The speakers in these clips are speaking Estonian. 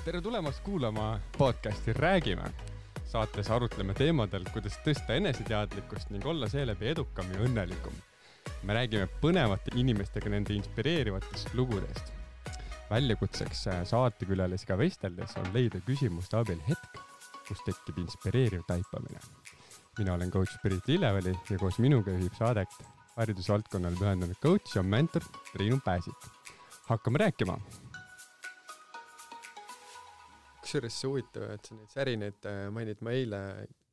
Tere tulemast kuulama podcasti Räägime. Saates arutleme teemadel, kuidas tõsta eneseteadlikkust ning olla seeläbi edukam ja õnnelikum. Me räägime põnevate inimestega nende inspireerivatest lugudest. Väljakutseks saatekülalisiga vesteldes on leida küsimuste abil hetk, kus tekib inspireeriv taipamine. Mina olen coach Pirit Lilleväli ja koos minuga juhib saadet haridusvaldkonnale pühendunud coach ja mentor Triinu Pääsik. Hakkame rääkima! Kusjuures see huvitav, et sa neid särinaid mainid, ma eile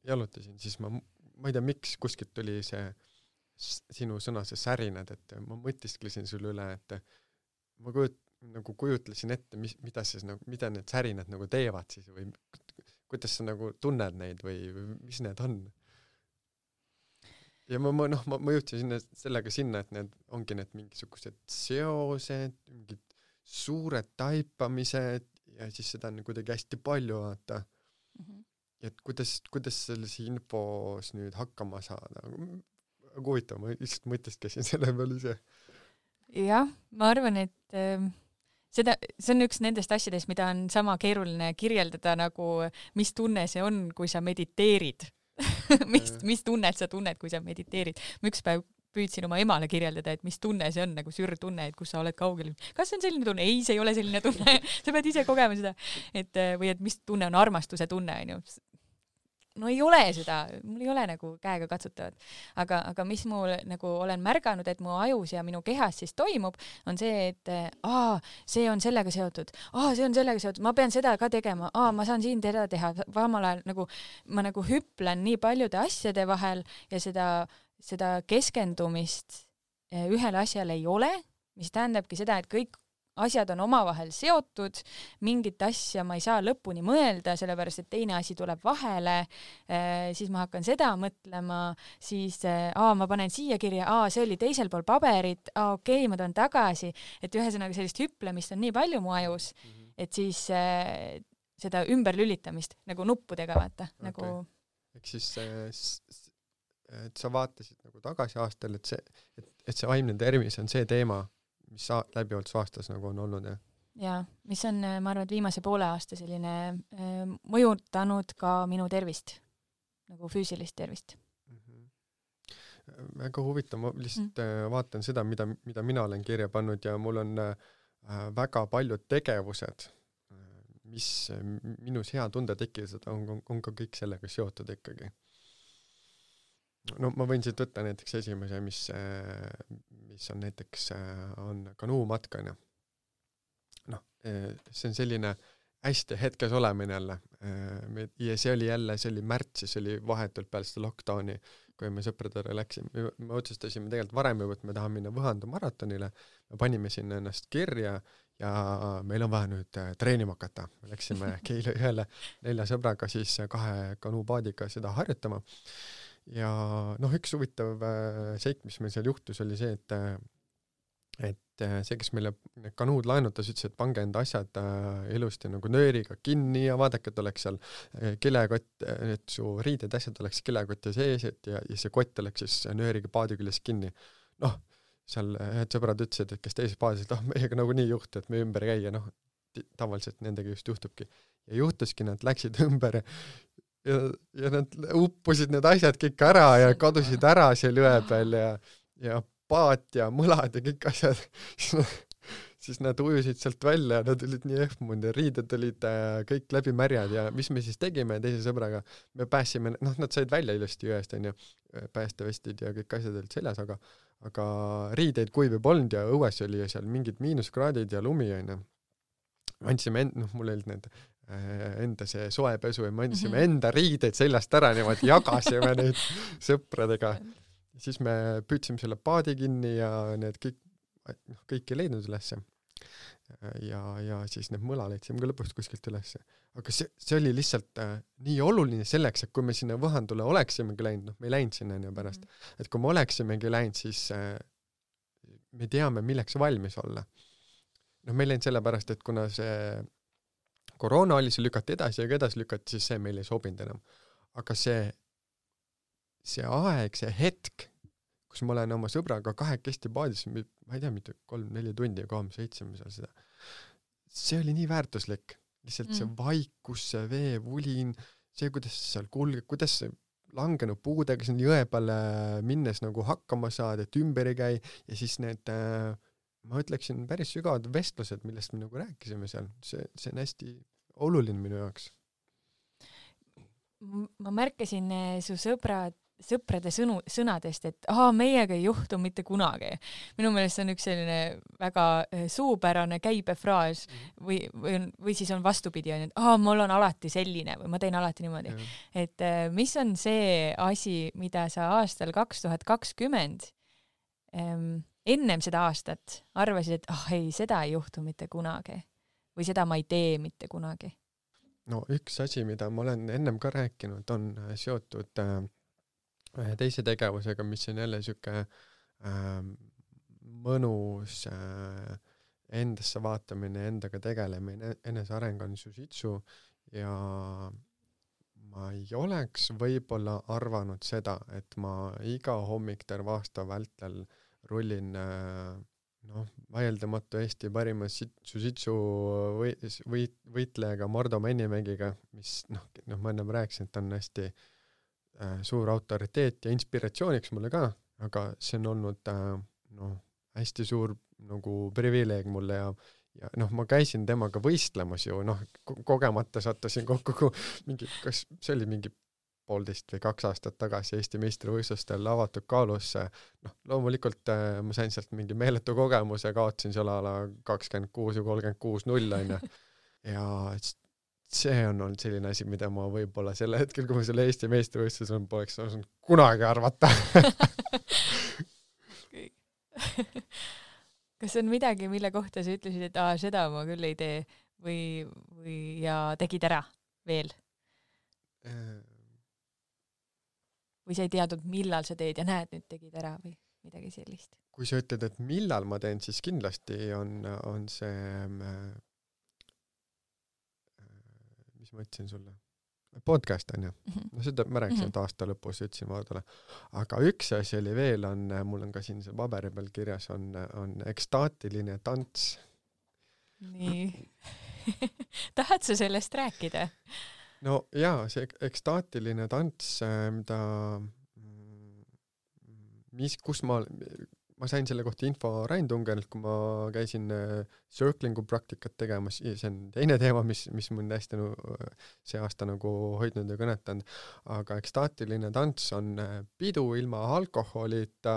jalutasin, siis ma ei tea, miks kuskilt tuli see sinu sõna, see särinad, et ma mõtisklesin sulle üle, et ma kujutlesin ette, mida need särinad nagu teevad siis või kuidas sa nagu tunned neid või mis need on. Ja ma jõudsin sellega sinna, et need ongi need mingisugused seosed, mingid suured taipamised ja siis seda on kuidagi hästi palju vaata. Et kuidas sellise infos nüüd hakkama saada? Huvitav, ma lihtsalt mõtestkesin selle peale ise. Jah, ma arvan, et see on üks nendest asjadest, mida on sama keeruline kirjeldada nagu mis tunne see on, kui sa mediteerid. mis tunnet sa tunned, kui sa mediteerid. Ma üks päev püüdsin oma emale kirjeldada, et mis tunne see on, nagu sürtunne, et kus sa oled kaugel. Kas see on selline tunne? Ei, see ei ole selline tunne. Sa pead ise kogema seda. Või et mis tunne on armastuse tunne. No ei ole seda. Mul ei ole nagu käega katsutavad. Aga mis mul nagu olen märganud, et mu ajus ja minu kehas siis toimub, on see, et see on sellega seotud. See on sellega seotud. Ma pean seda ka tegema. Ma saan siin teda teha. Vamal ajal ma hüplen nii paljude asjade vahel ja seda keskendumist ühele asjale ei ole, mis tähendabki seda, et kõik asjad on omavahel seotud, mingit asja ma ei saa lõpuni mõelda, sellepärast, et teine asi tuleb vahele, siis ma hakkan seda mõtlema, siis ma panen siia kirja, see oli teisel pool paberit, okei, ma toon tagasi, et ühesõnaga sellist hüplemist on nii palju mu ajus, et siis seda ümberlülitamist nagu nuppudega vaata. Okay. Nagu... Ehk siis et sa vaatasid nagu tagasi aastal, et see vaimne tervis on see teema, mis läbivalt su aastas nagu on olnud, jah? Jaa, mis on, ma arvan, et viimase poole aasta selline mõjutanud ka minu tervist, nagu füüsilist tervist. Väga huvitav, ma lihtsalt vaatan seda, mida mina olen kirja pannud ja mul on väga paljud tegevused, mis minus hea tunde tekivad, on ka kõik sellega seotud ikkagi. No ma võin siit võtta näiteks esimese, mis on näiteks on kanuumatkana. See on selline hästi hetkes olemine jälle. Ja see oli märtsis, see oli vahetult peale seda lockdowni, kui me sõpradele läksime. Me otsustasime tegelikult varem juba, et me tahame minna Võhandu maratonile. Me panime sinna ennast kirja ja meil on vaja nüüd treenima hakata. Me läksime Keila ühele 4 sõbraga siis 2 kanuupaadiga seda harjutama. Ja üks huvitav seik, mis meil seal juhtus, oli see, et see, kes meile kanuud laenutas, ütles, et pange enda asjad ilusti nagu nööriga kinni ja vaadake, et oleks seal kilekott, et su riided asjad oleks kilekotti sees ja see kott oleks siis nööriga paadi küljes kinni. Seal ühed sõbrad ütlesid, et kes teises paadis, et meiega nagu nii juhtu, et me ümber käia, tavaliselt nendega just juhtubki. Ja juhtuski, nad läksid ümber ja nad uppusid need asjad kõik ära ja kadusid ära seal jõe peal ja paat ja mõlad ja kõik asjad. Siis nad ujusid sealt välja ja nad olid nii ehmunud ja riided olid kõik läbi märjad ja mis me siis tegime teise sõbraga? Me pääsime, nad said välja ilusti jõest, päästevestid ja kõik asjad olid seljas, aga riideid kuivi polnud ja õues oli seal mingid miinuskraadid ja lumi. Andsime mul olid need enda see soepesu ja me andsime enda riideid seljast ära, niimoodi jagasime neid sõpradega. Siis me püüdsime selle paadi kinni ja need kõik ei leidnud ülesse. Ja siis need mõla leidsime ka lõpuks kuskilt ülesse. Aga see oli lihtsalt nii oluline selleks, et kui me sinna Võhandule oleksimegi läinud, me ei läinud sinna pärast, et kui me oleksimegi läinud, siis me teame, milleks valmis olla. Me ei läinud sellepärast, et kuna see koroona oli, see lükati edasi ja edasi lükati, siis see meil ei sobinud enam. Aga see aeg, see hetk, kus ma olen oma sõbraga 2 paadis, ma ei tea, mitte 3-4 tundi ja 3-7 seal seda. See oli nii väärtuslik. lihtsalt see vaikus, see veevulin, see, kuidas seal kulgeb, kuidas see langenud puudega siin jõe peale minnes nagu hakkama saad, et ümber ei käi ja siis need, ma ütleksin, päris sügavad vestlused, millest me nagu rääkisime seal, see on hästi oluline minu jaoks. Ma märkasin su sõprade sõnadest, et meiega ei juhtu mitte kunagi. Minu meelest see on üks selline väga suupärane käibefraas või siis on vastupidi, et mul on alati selline või ma teen alati niimoodi. Et mis on see asi, mida sa aastal 2020 ennem seda aastat arvasid, et ei, seda ei juhtu mitte kunagi või seda ma ei tee mitte kunagi? No üks asi, mida ma olen ennem ka rääkinud, on seotud ühe teise tegevusega, mis on jälle siuke mõnus endasse vaatamine, endaga tegelemine, eneseareng on jiu-jitsu ja ma ei oleks võib-olla arvanud seda, et ma iga hommik terve aasta vältel rullin vaieldamatu Eesti parima jiu-jitsu võitlejaga Mardo Männimägiga, mis ma ennem rääkisin, et on hästi suur autoriteet ja inspiratsiooniks mulle ka, aga see on olnud hästi suur nagu privileeg mulle ja ma käisin temaga võistlemas ju, kogemata sattusin kokku mingi, kas see oli mingi 1,5 või 2 aastat tagasi Eesti meistrivõistlustel avatud kaalus, loomulikult ma sain sealt mingi meeletu kogemuse, kaotasin seal ala 26 või 36-0 on ja see on olnud selline asi, mida ma võib-olla selle hetkel, kui ma selle Eesti meistrivõistlus on, poleks osanud kunagi arvata. Kas on midagi, mille kohta sa ütlesid, et seda ma küll ei tee või ja tegid ära veel? Või sa ei teadnud, millal sa teed ja näed, nüüd tegid ära või midagi sellist? Kui sa ütled, et millal ma teen, siis kindlasti on see mis ma ütlesin sulle? Podcast on ju. Seda ma rääkisin, et aasta lõpus ütlesin Vardole. Aga üks asi oli veel, mul on ka siin see paberi peal kirjas, on ekstaatiline tants. Nii. Tahad sa sellest rääkida? No jaa, see ekstaatiline tants, kus ma sain selle kohta info Rain Tungerilt, kui ma käisin circlingu praktikat tegemas, see on teine teema, mis mind hästi see aasta nagu hoidnud ja kõnetanud, aga ekstaatiline tants on pidu ilma alkoholita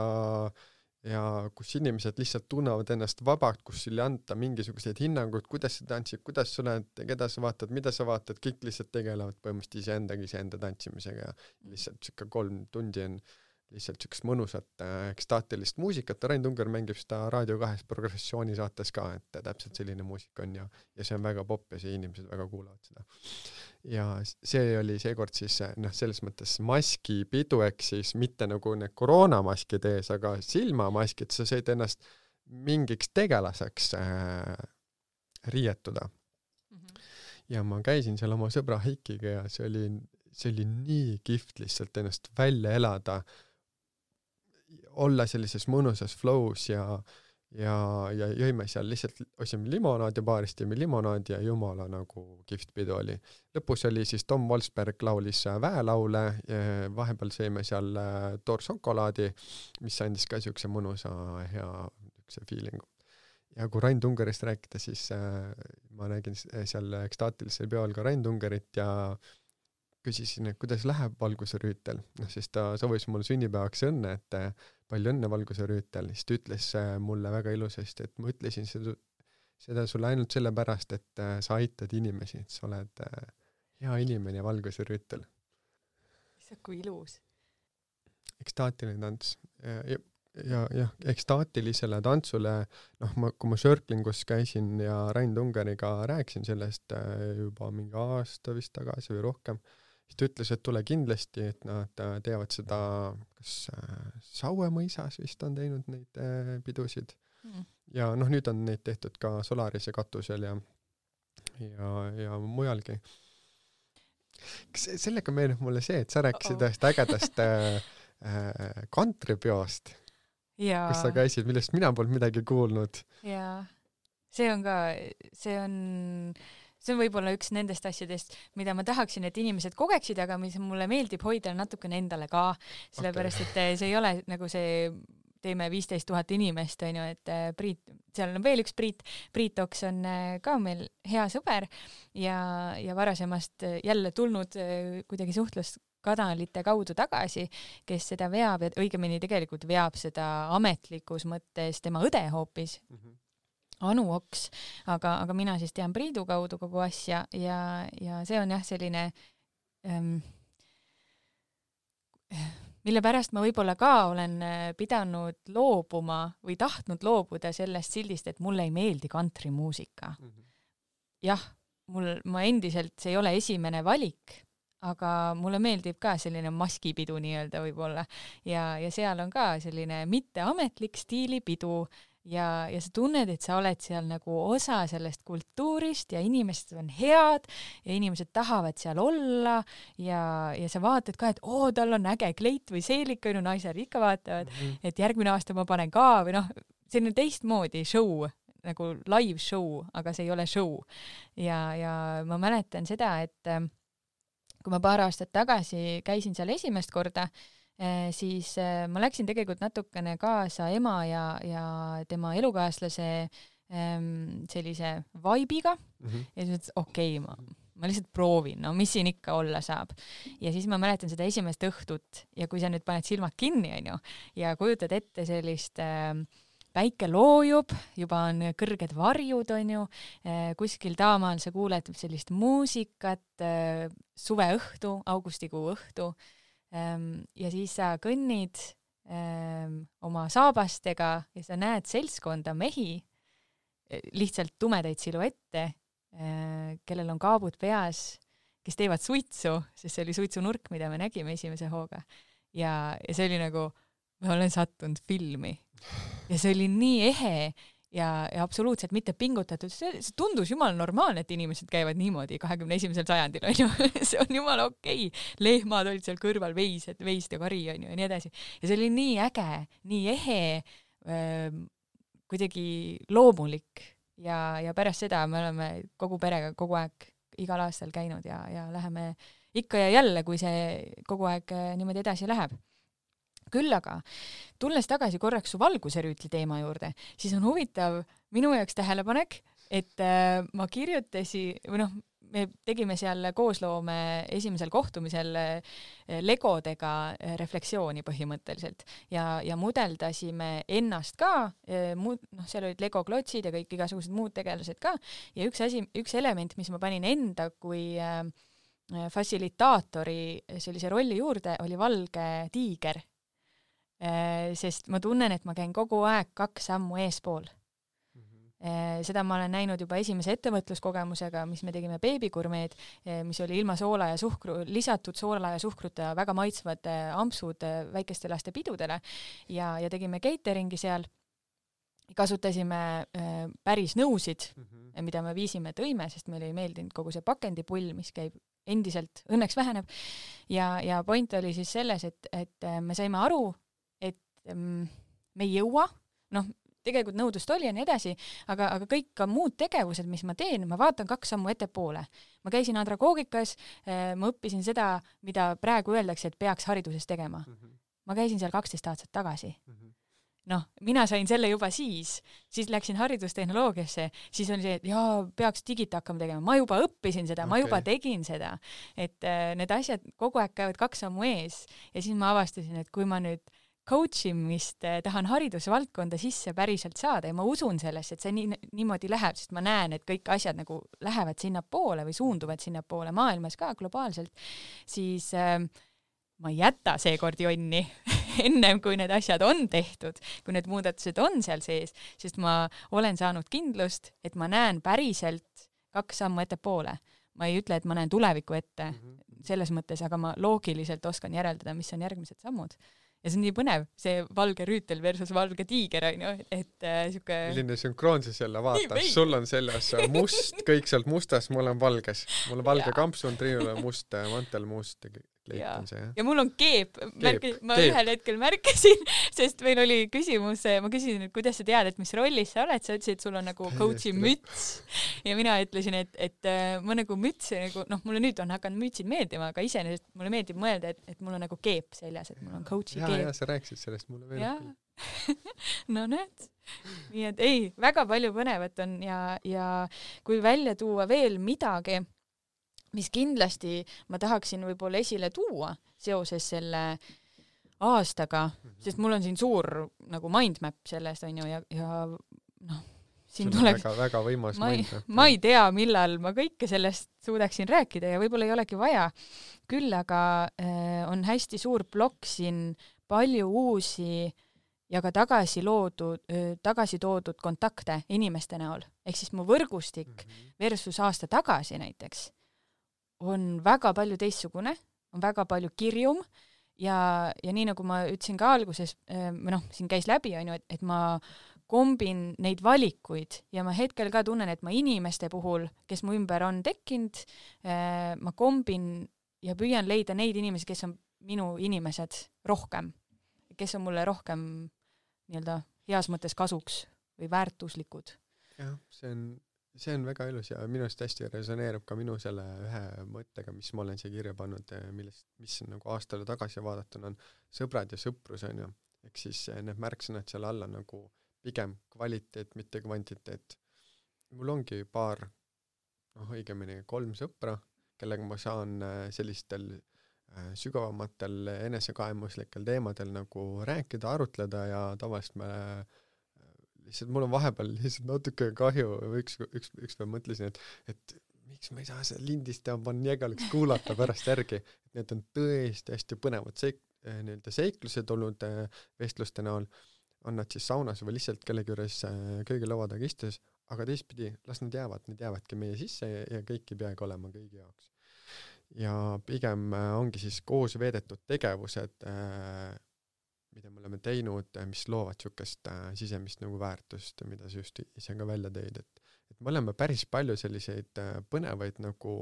ja kus inimesed lihtsalt tunnevad ennast vabalt, kus ei anta mingisuguseid hinnanguid, kuidas sa tantsid, kuidas sa oled, keda sa vaatad, mida sa vaatad, kõik lihtsalt tegelevad põhimõtteliselt iseenda tantsimisega ja lihtsalt 3 tundi on lihtsalt siukest mõnusat ekstaatilist muusikat. Rain Tunger mängib seda Raadio 2 progressiooni saates ka, et täpselt selline muusika on ja see on väga popp ja see inimesed väga kuulavad seda. Ja see oli seekord siis selles mõttes maskipidu, ehk siis mitte nagu need koroonamaskid ees, aga silmamaskid, sa said ennast mingiks tegelaseks riietuda. Ja ma käisin seal oma sõbra Heikiga ja see oli nii kihvt lihtsalt ennast välja elada, olla sellises mõnusas flows ja jõime seal lihtsalt, osime limonaadi baarist, jõime limonaadi ja jumala nagu kihvt pidu oli. Lõpus oli siis Tom Wolfsberg laulis väelaule, vahepeal sõime seal toorsokolaadi, mis andis ka siukse mõnusa hea feelingu. Ja kui Rain Tungerist rääkida, siis ma nägin seal ekstaatilisel peol ka Rain Tungerit ja küsisin, et kuidas läheb valguserüütel. Siis ta soovis mulle sünnipäevaks õnne, et palju õnne valguserüütel. Siis ta ütles mulle väga ilusasti, et ma ütlesin seda sulle ainult sellepärast, et sa aitad inimesi, et sa oled hea inimene valguserüütel. Issa, kui ilus. Ekstaatiline tants. Ja ekstaatilisele tantsule, kui ma circlingus käisin ja Rain Tungeriga rääkisin sellest juba mingi aasta vist tagasi või rohkem, siis ta ütles, et tule kindlasti, et nad teevad seda, kas Saue mõisas vist on teinud neid pidusid. Ja nüüd on neid tehtud ka Solarise katusel ja mujalgi. Kas sellega meenub mulle see, et sa rääkisid ühest ägedast kantripeost, kus sa käisid, millest mina polnud midagi kuulnud. Jaa, see on see on võib-olla üks nendest asjadest, mida ma tahaksin, et inimesed kogeksid, aga mis mulle meeldib hoida natukene endale ka, sellepärast et see ei ole nagu see teeme 15 000 inimest, on ju, et Priit, seal on veel üks Priit Oks on ka meil hea sõber ja varasemast jälle tulnud kuidagi suhtluskanalite kaudu tagasi, kes seda veab ja õigemini tegelikult veab seda ametlikus mõttes tema õde hoopis, Anu Oks, aga mina siis tean Priidu kaudu kogu asja ja see on jah selline mille pärast ma võib-olla ka olen pidanud loobuma või tahtnud loobuda sellest sildist, et mulle ei meeldi kantrimuusika. Jah, ma endiselt, see ei ole esimene valik, aga mulle meeldib ka selline maskipidu nii-öelda võib-olla ja seal on ka selline mitteametlik stiilipidu ja sa tunned, et sa oled seal nagu osa sellest kultuurist ja inimesed on head ja inimesed tahavad seal olla ja sa vaatad ka, et tal on äge kleit või seelik, on ju, naised ikka vaatavad, et järgmine aasta ma panen ka või noh, selline teistmoodi show, nagu live show, aga see ei ole show. Ja ma mäletan seda, et kui ma paar aastat tagasi käisin seal esimest korda, siis ma läksin tegelikult natukene kaasa ema ja tema elukaaslase sellise vibe'iga ja siis mõtlesin, okei, ma lihtsalt proovin, no mis siin ikka olla saab. Ja siis ma mäletan seda esimest õhtut ja kui sa nüüd paned silmad kinni, on ju, ja kujutad ette sellist päike loojub, juba on kõrged varjud, on ju, kuskil taamaal sa kuuled sellist muusikat, suveõhtu, augustikuu õhtu, ja siis sa kõnnid oma saabastega ja sa näed seltskonda mehi, lihtsalt tumedaid siluette, kellel on kaabud peas, kes teevad suitsu, sest see oli suitsunurk, mida me nägime esimese hooga. Ja see oli nagu, ma olen sattunud filmi. Ja see oli nii ehe ja absoluutselt mitte pingutatud. See tundus jumala normaalne, et inimesed käivad niimoodi 21. sajandil, on ju. See on jumala okei. Lehmad olid seal kõrval, veised ja kari, on ju, ja nii edasi. Ja see oli nii äge, nii ehe, kuidagi loomulik. Ja pärast seda me oleme kogu perega kogu aeg igal aastal käinud ja läheme ikka ja jälle, kui see kogu aeg niimoodi edasi läheb. Küll aga, tulles tagasi korraks su valguserüütli teema juurde, siis on huvitav minu jaoks tähelepanek, et ma kirjutasin, või noh, me tegime seal koosloome esimesel kohtumisel legodega refleksiooni põhimõtteliselt ja mudeldasime ennast ka, seal olid Lego klotsid ja kõik igasugused muud tegelased ka ja üks element, mis ma panin enda kui fassilitaatori sellise rolli juurde, oli valge tiiger. Sest ma tunnen, et ma käin kogu aeg 2 sammu eespool. Seda ma olen näinud juba esimese ettevõtluskogemusega, mis me tegime beebigurmeed, mis oli ilma soola ja lisatud soola ja suhkruta väga maitsvad ampsud väikeste laste pidudele ja tegime cateringi seal. Kasutasime päris nõusid, mida me viisime tõime, sest meile ei meeldinud kogu see pakendipull, mis käib endiselt, õnneks väheneb. Ja point oli siis selles, et me saime aru, me ei jõua, tegelikult nõudlust oli ja nii edasi, aga kõik ka muud tegevused, mis ma teen, ma vaatan 2 sammu ettepoole. Ma käisin andragoogikas, ma õppisin seda, mida praegu öeldakse, et peaks hariduses tegema. Ma käisin seal 12 aastat tagasi. Mina sain selle juba siis läksin haridustehnoloogiasse, siis oli see, et peaks digita hakkama tegema. Ma juba õppisin seda, ma juba tegin seda. Et need asjad kogu aeg käivad 2 sammu ees ja siis ma avastasin, et kui ma nüüd coachimist tahan haridusvaldkonda sisse päriselt saada ja ma usun sellesse, et see niimoodi läheb, sest ma näen, et kõik asjad nagu lähevad sinna poole või suunduvad sinna poole maailmas ka globaalselt, siis ma ei jäta seekord jonni ennem, kui need asjad on tehtud, kui need muudatused on seal sees, sest ma olen saanud kindlust, et ma näen päriselt 2 sammu ettepoole. Ma ei ütle, et ma näen tuleviku ette selles mõttes, aga ma loogiliselt oskan järeldada, mis on järgmised sammud. Ja see on nii põnev, see valge rüütel versus valge tiiger, on ju, et siuke... Milline sünkroonsus jälle vaatas, sul on selles must, kõik sealt mustast, mul on valges. Mul on valge kampsun, Triinul on must mantel, must kleit on see, jah. Ja mul on keep. Ma ühel hetkel märkasin, sest meil oli küsimus, ma küsisin, et kuidas sa tead, et mis rollis sa oled, sa ütlesid, et sul on nagu coachi müts. Ja mina ütlesin, et ma nagu müts, nagu, mulle nüüd on hakanud mütsid meeldima, aga iseenesest mulle meeldib mõelda, et mul on nagu keep seljas, et mul on coachi keep. Ja sa rääkisid sellest, mulle meeldib küll. No näed. Nii et ei, väga palju põnevat on ja kui välja tuua veel midagi, mis kindlasti ma tahaksin võib-olla esile tuua seoses selle aastaga, sest mul on siin suur nagu mindmap sellest, on ju, ja siin tuleks... Väga võimas mindmap. Ma ei tea, millal ma kõike sellest suudaksin rääkida ja võib-olla ei olegi vaja. Küll aga on hästi suur plokk siin, palju uusi ja ka tagasi toodud kontakte inimeste näol. Ehk siis mu võrgustik versus aasta tagasi näiteks on väga palju teistsugune, on väga palju kirjum ja nii nagu ma ütlesin ka alguses, siin käis läbi, on ju, et ma kombin neid valikuid ja ma hetkel ka tunnen, et ma inimeste puhul, kes mu ümber on tekkinud, ma kombin ja püüan leida neid inimesi, kes on minu inimesed rohkem, kes on mulle rohkem nii-öelda heas mõttes kasuks või väärtuslikud. Jah, see on väga ilus ja minust hästi resoneerub ka minu selle ühe mõttega, mis ma olen siia kirja pannud, mis nagu aastale tagasi vaadatuna on sõbrad ja sõprus, on ju. Ehk siis need märksõnad seal alla nagu pigem kvaliteet, mitte kvantiteet. Mul ongi paar, õigemini 3 sõpra, kellega ma saan sellistel sügavamatel enesekaemuslikel teemadel nagu rääkida, arutleda ja tavaliselt lihtsalt mul on vahepeal lihtsalt natuke kahju, üks päev mõtlesin, et miks ma ei saa seda lindistada, ma jägaliks kuulata pärast järgi. Need on tõesti hästi põnevad seiklused olnud vestluste näol, on nad siis saunas või lihtsalt kellegi juures köögilaua taga istes, aga teistpidi, las nad jäävadki meie sisse ja kõik ei peagi olema kõigi jaoks. Ja pigem ongi siis koos veedetud tegevused, mida me oleme teinud, mis loovad sükest sisemist nagu väärtust, mida sa just ise ka välja tõid, et me oleme päris palju selliseid põnevaid nagu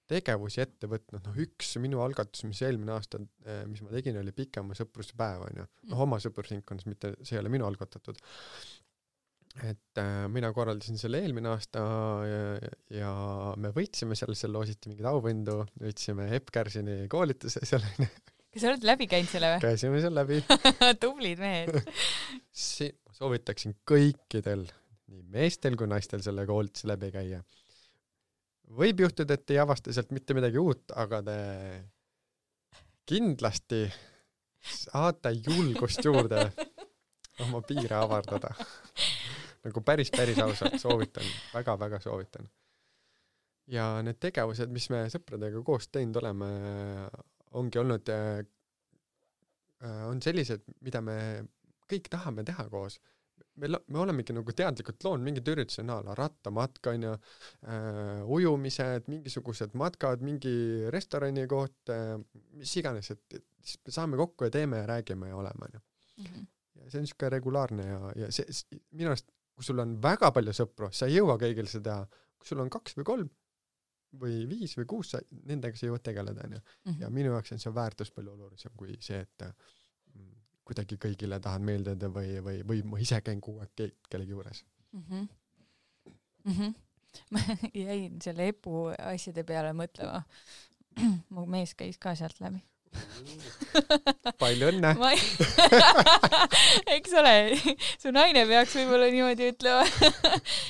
tegevusi ette võtnud, üks minu algatus, mis eelmine aasta, mis ma tegin, oli pikema sõpruse päev, on ju. Oma sõprusringkonnas, mitte see ei ole minu algatatud. Et mina korraldasin selle eelmine aasta ja me võitsime selle loositi mingid auvindu, võitsime Epp Kärsini koolituse seal. Kas sa oled läbi käinud selle või? Käisime seal läbi. Tublid mehed. Soovitaksin kõikidel, nii meestel kui naistel selle koolituse läbi käia. Võib juhtuda, et ei avasta sealt mitte midagi uut, aga te kindlasti saate julgust juurde oma piire avardada. Nagu päris ausalt soovitan, väga soovitan. Ja need tegevused, mis me sõpradega koos teinud oleme, ongi olnud, on sellised, mida me kõik tahame teha koos. Me olemegi nagu teadlikult loonud mingid üritused näala, rattamatka, ujumised, mingisugused matkad, mingi restorani koht, mis iganes, et saame kokku ja teeme ja räägime ja oleme. Ja see on niisugune regulaarne ja see, minu arust, kui sul on väga palju sõpru, sa ei jõua kõigil seda, kui sul on 2 või 3 või 5 või 6, nendega sa jõuad tegeleda. Ja minu jaoks on see väärtus palju olulisem kui see, et kuidagi kõigile tahad meeldida või ma ise käin kogu aeg kellegi juures. Ma jäin selle EPU asjade peale mõtlema. Mu mees käis ka sealt läbi. Palju õnne! Eks ole, su naine peaks võib-olla niimoodi ütlema.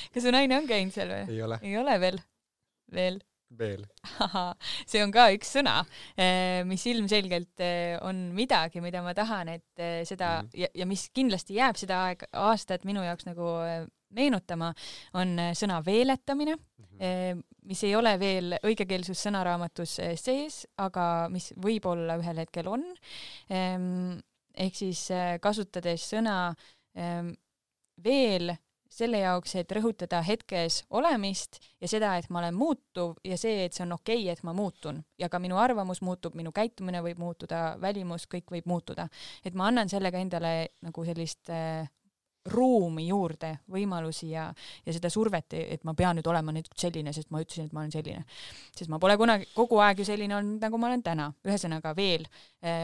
Kas su naine on käinud seal või? Ei ole veel. See on ka üks sõna, mis ilmselgelt on midagi, mida ma tahan, et seda ja mis kindlasti jääb seda aastat minu jaoks nagu meenutama, on sõna veeletamine, mis ei ole veel õigekeelsus sõnaraamatus sees, aga mis võib-olla ühel hetkel on. Ehk siis kasutades sõna veel selle jaoks, et rõhutada hetkes olemist ja seda, et ma olen muutuv ja see, et see on okei, et ma muutun. Ja ka minu arvamus muutub, minu käitumine võib muutuda, välimus, kõik võib muutuda. Et ma annan sellega endale nagu sellist ruumi juurde, võimalusi ja seda survet, et ma pean nüüd olema nüüd selline, sest ma ütlesin, et ma olen selline. Sest ma pole kunagi kogu aeg ju selline olnud, nagu ma olen täna. Ühesõnaga veel,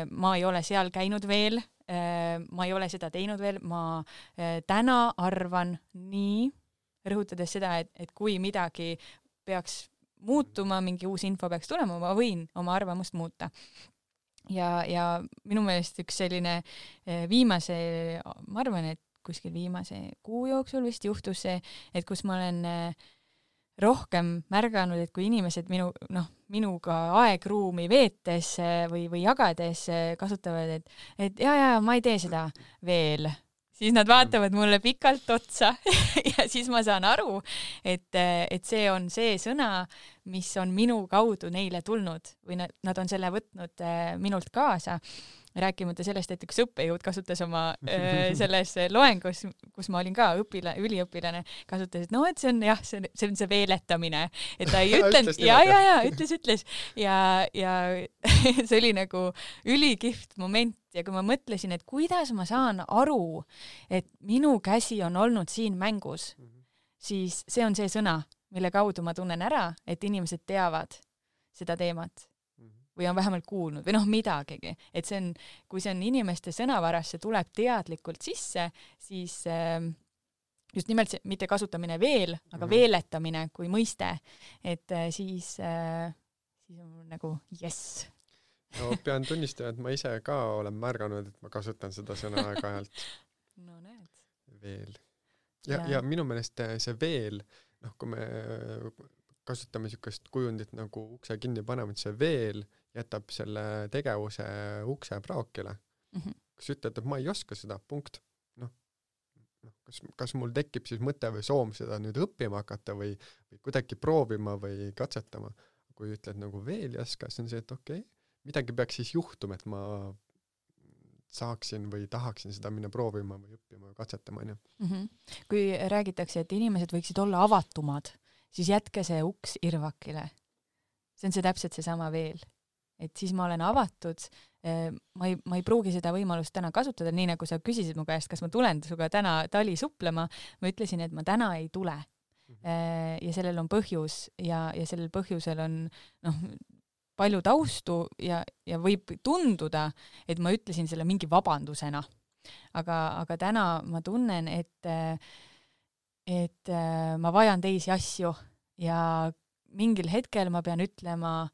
ma ei ole seal käinud veel, ma ei ole seda teinud veel, ma täna arvan nii, rõhutades seda, et kui midagi peaks muutuma, mingi uus info peaks tulema, ma võin oma arvamust muuta. Ja minu meelest üks selline viimase, ma arvan, et kuskil viimase kuu jooksul vist juhtus see, et kus ma olen rohkem märganud, et kui inimesed minuga aegruumi veetes või jagades kasutavad, et ja, ma ei tee seda veel, siis nad vaatavad mulle pikalt otsa ja siis ma saan aru, et see on see sõna, mis on minu kaudu neile tulnud või nad on selle võtnud minult kaasa. Rääkimata sellest, et üks õppejõud kasutas oma selles loengus, kus ma olin ka üliõpilane, kasutas, et et see on see veeletamine, et ta ei ütlenud, ütles ja see oli nagu ülikihvt moment ja kui ma mõtlesin, et kuidas ma saan aru, et minu käsi on olnud siin mängus, siis see on see sõna, mille kaudu ma tunnen ära, et inimesed teavad seda teemat või on vähemalt kuulnud või midagigi, et see on, kui see on inimeste sõnavarasse tuleb teadlikult sisse, siis just nimelt see, mitte kasutamine veel, aga veeletamine kui mõiste, et siis on nagu jess. No pean tunnistama, et ma ise ka olen märganud, et ma kasutan seda sõna aeg-ajalt. No näed. Veel. Ja minu meelest see veel, kui me kasutame niisugust kujundit nagu ukse kinni panevad, see veel jätab selle tegevuse ukse praokile. Kas ütled, et ma ei oska seda, punkt. Kas mul tekib siis mõte või soom seda nüüd õppima hakata või kuidagi proovima või katsetama. Kui ütled nagu veel ei oska, siis on see, et okei, midagi peaks siis juhtuma, et ma saaksin või tahaksin seda minna proovima või õppima või katsetama. Kui räägitakse, et inimesed võiksid olla avatumad, siis jätke see uks irvakile. See on see täpselt seesama veel. Et siis ma olen avatud, ma ei pruugi seda võimalust täna kasutada, nii nagu sa küsisid mu käest, kas ma tulen suga täna tali suplema, ma ütlesin, et ma täna ei tule. Ja sellel on põhjus ja sellel põhjusel on palju taustu ja võib tunduda, et ma ütlesin selle mingi vabandusena. Aga täna ma tunnen, et ma vajan teisi asju ja mingil hetkel ma pean ütlema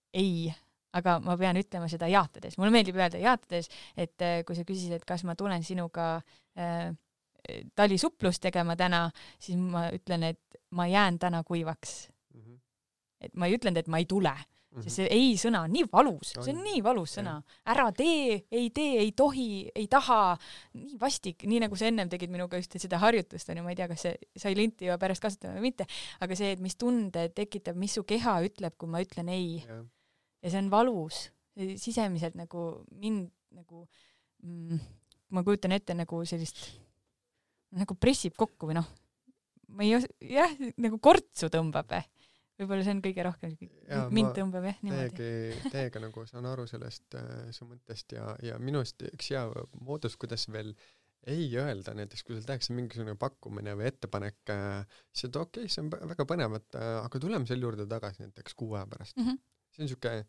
ei, aga ma pean ütlema seda jaatades. Mulle meeldib öelda jaatades, et kui sa küsisid, et kas ma tulen sinuga talisuplust tegema täna, siis ma ütlen, et ma jään täna kuivaks. Et ma ei ütlenud, et ma ei tule. Sest see ei sõna on nii valus. See on nii valus sõna. Ära tee, ei tohi, ei taha. Nii vastik, nii nagu sa ennem tegid minuga just seda harjutust. Ma ei tea, kas see sai linti juba pärast kasutada või mitte. Aga see, et mis tunde tekitab, mis su keha ütleb, kui ma ütlen ei. Ja see on valus. Sisemiselt nagu mind nagu ma kujutan ette nagu sellist nagu pressib kokku või ma ei nagu kortsu tõmbab. Võib-olla see on kõige rohkem mind tõmbab niimoodi. Teiega nagu saan aru sellest su mõttest ja minust üks hea moodus, kuidas veel ei öelda, näiteks kui sul tehakse mingisugune pakkumine või ettepanek, siis et okei, see on väga põnev, aga tuleme selle juurde tagasi näiteks 6 aja pärast. See on niisugune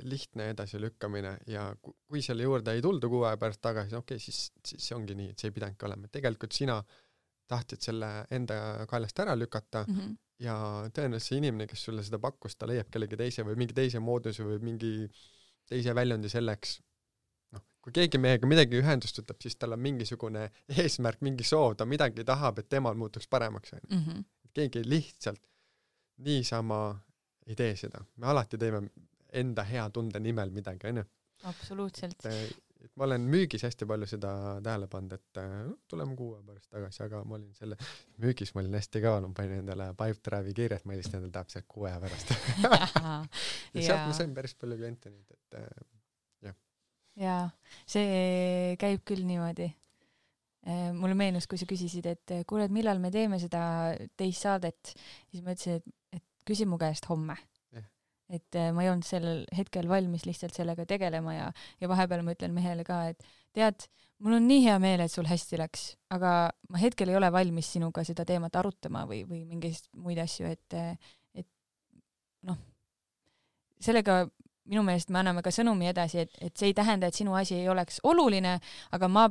lihtne edasilükkamine ja kui selle juurde ei tulda 6 aja pärast tagasi, okei, siis see ongi nii, et see ei pidanudki olema. Tegelikult sina tahtsid selle enda kaelast ära lükata ja tõenäoliselt see inimene, kes sulle seda pakkus, ta leiab kellegi teise või mingi teise mooduse või mingi teise väljundi selleks. Kui keegi meiega midagi ühendust võtab, siis tal on mingisugune eesmärk, mingi soov, ta midagi tahab, et temal muutuks paremaks. Keegi lihtsalt niisama ei tee seda. Me alati teeme enda hea tunde nimel midagi, on ju? Absoluutselt. Et ma olen müügis hästi palju seda tähele pannud, et tuleme 6 pärast tagasi, aga ma olin selle müügis, ma olin hästi kaval, ma panin endale Pipedrive'i kirjad, ma helistan endale täpselt 6 pärast. Ja sealt ma sain päris palju kliente nüüd, et jah. Jaa, see käib küll niimoodi. Mulle meenus, kui sa küsisid, et kuule, et millal me teeme seda teist saadet, siis ma ütlesin, et küsi mu käest homme. et ma ei olnud sellel hetkel valmis lihtsalt sellega tegelema ja vahepeal ma ütlen mehele ka, et tead, mul on nii hea meel, et sul hästi läks, aga ma hetkel ei ole valmis sinuga seda teemat arutama või mingeid muid asju, et noh, sellega minu meelest me anname ka sõnumi edasi, et see ei tähenda, et sinu asi ei oleks oluline, aga ma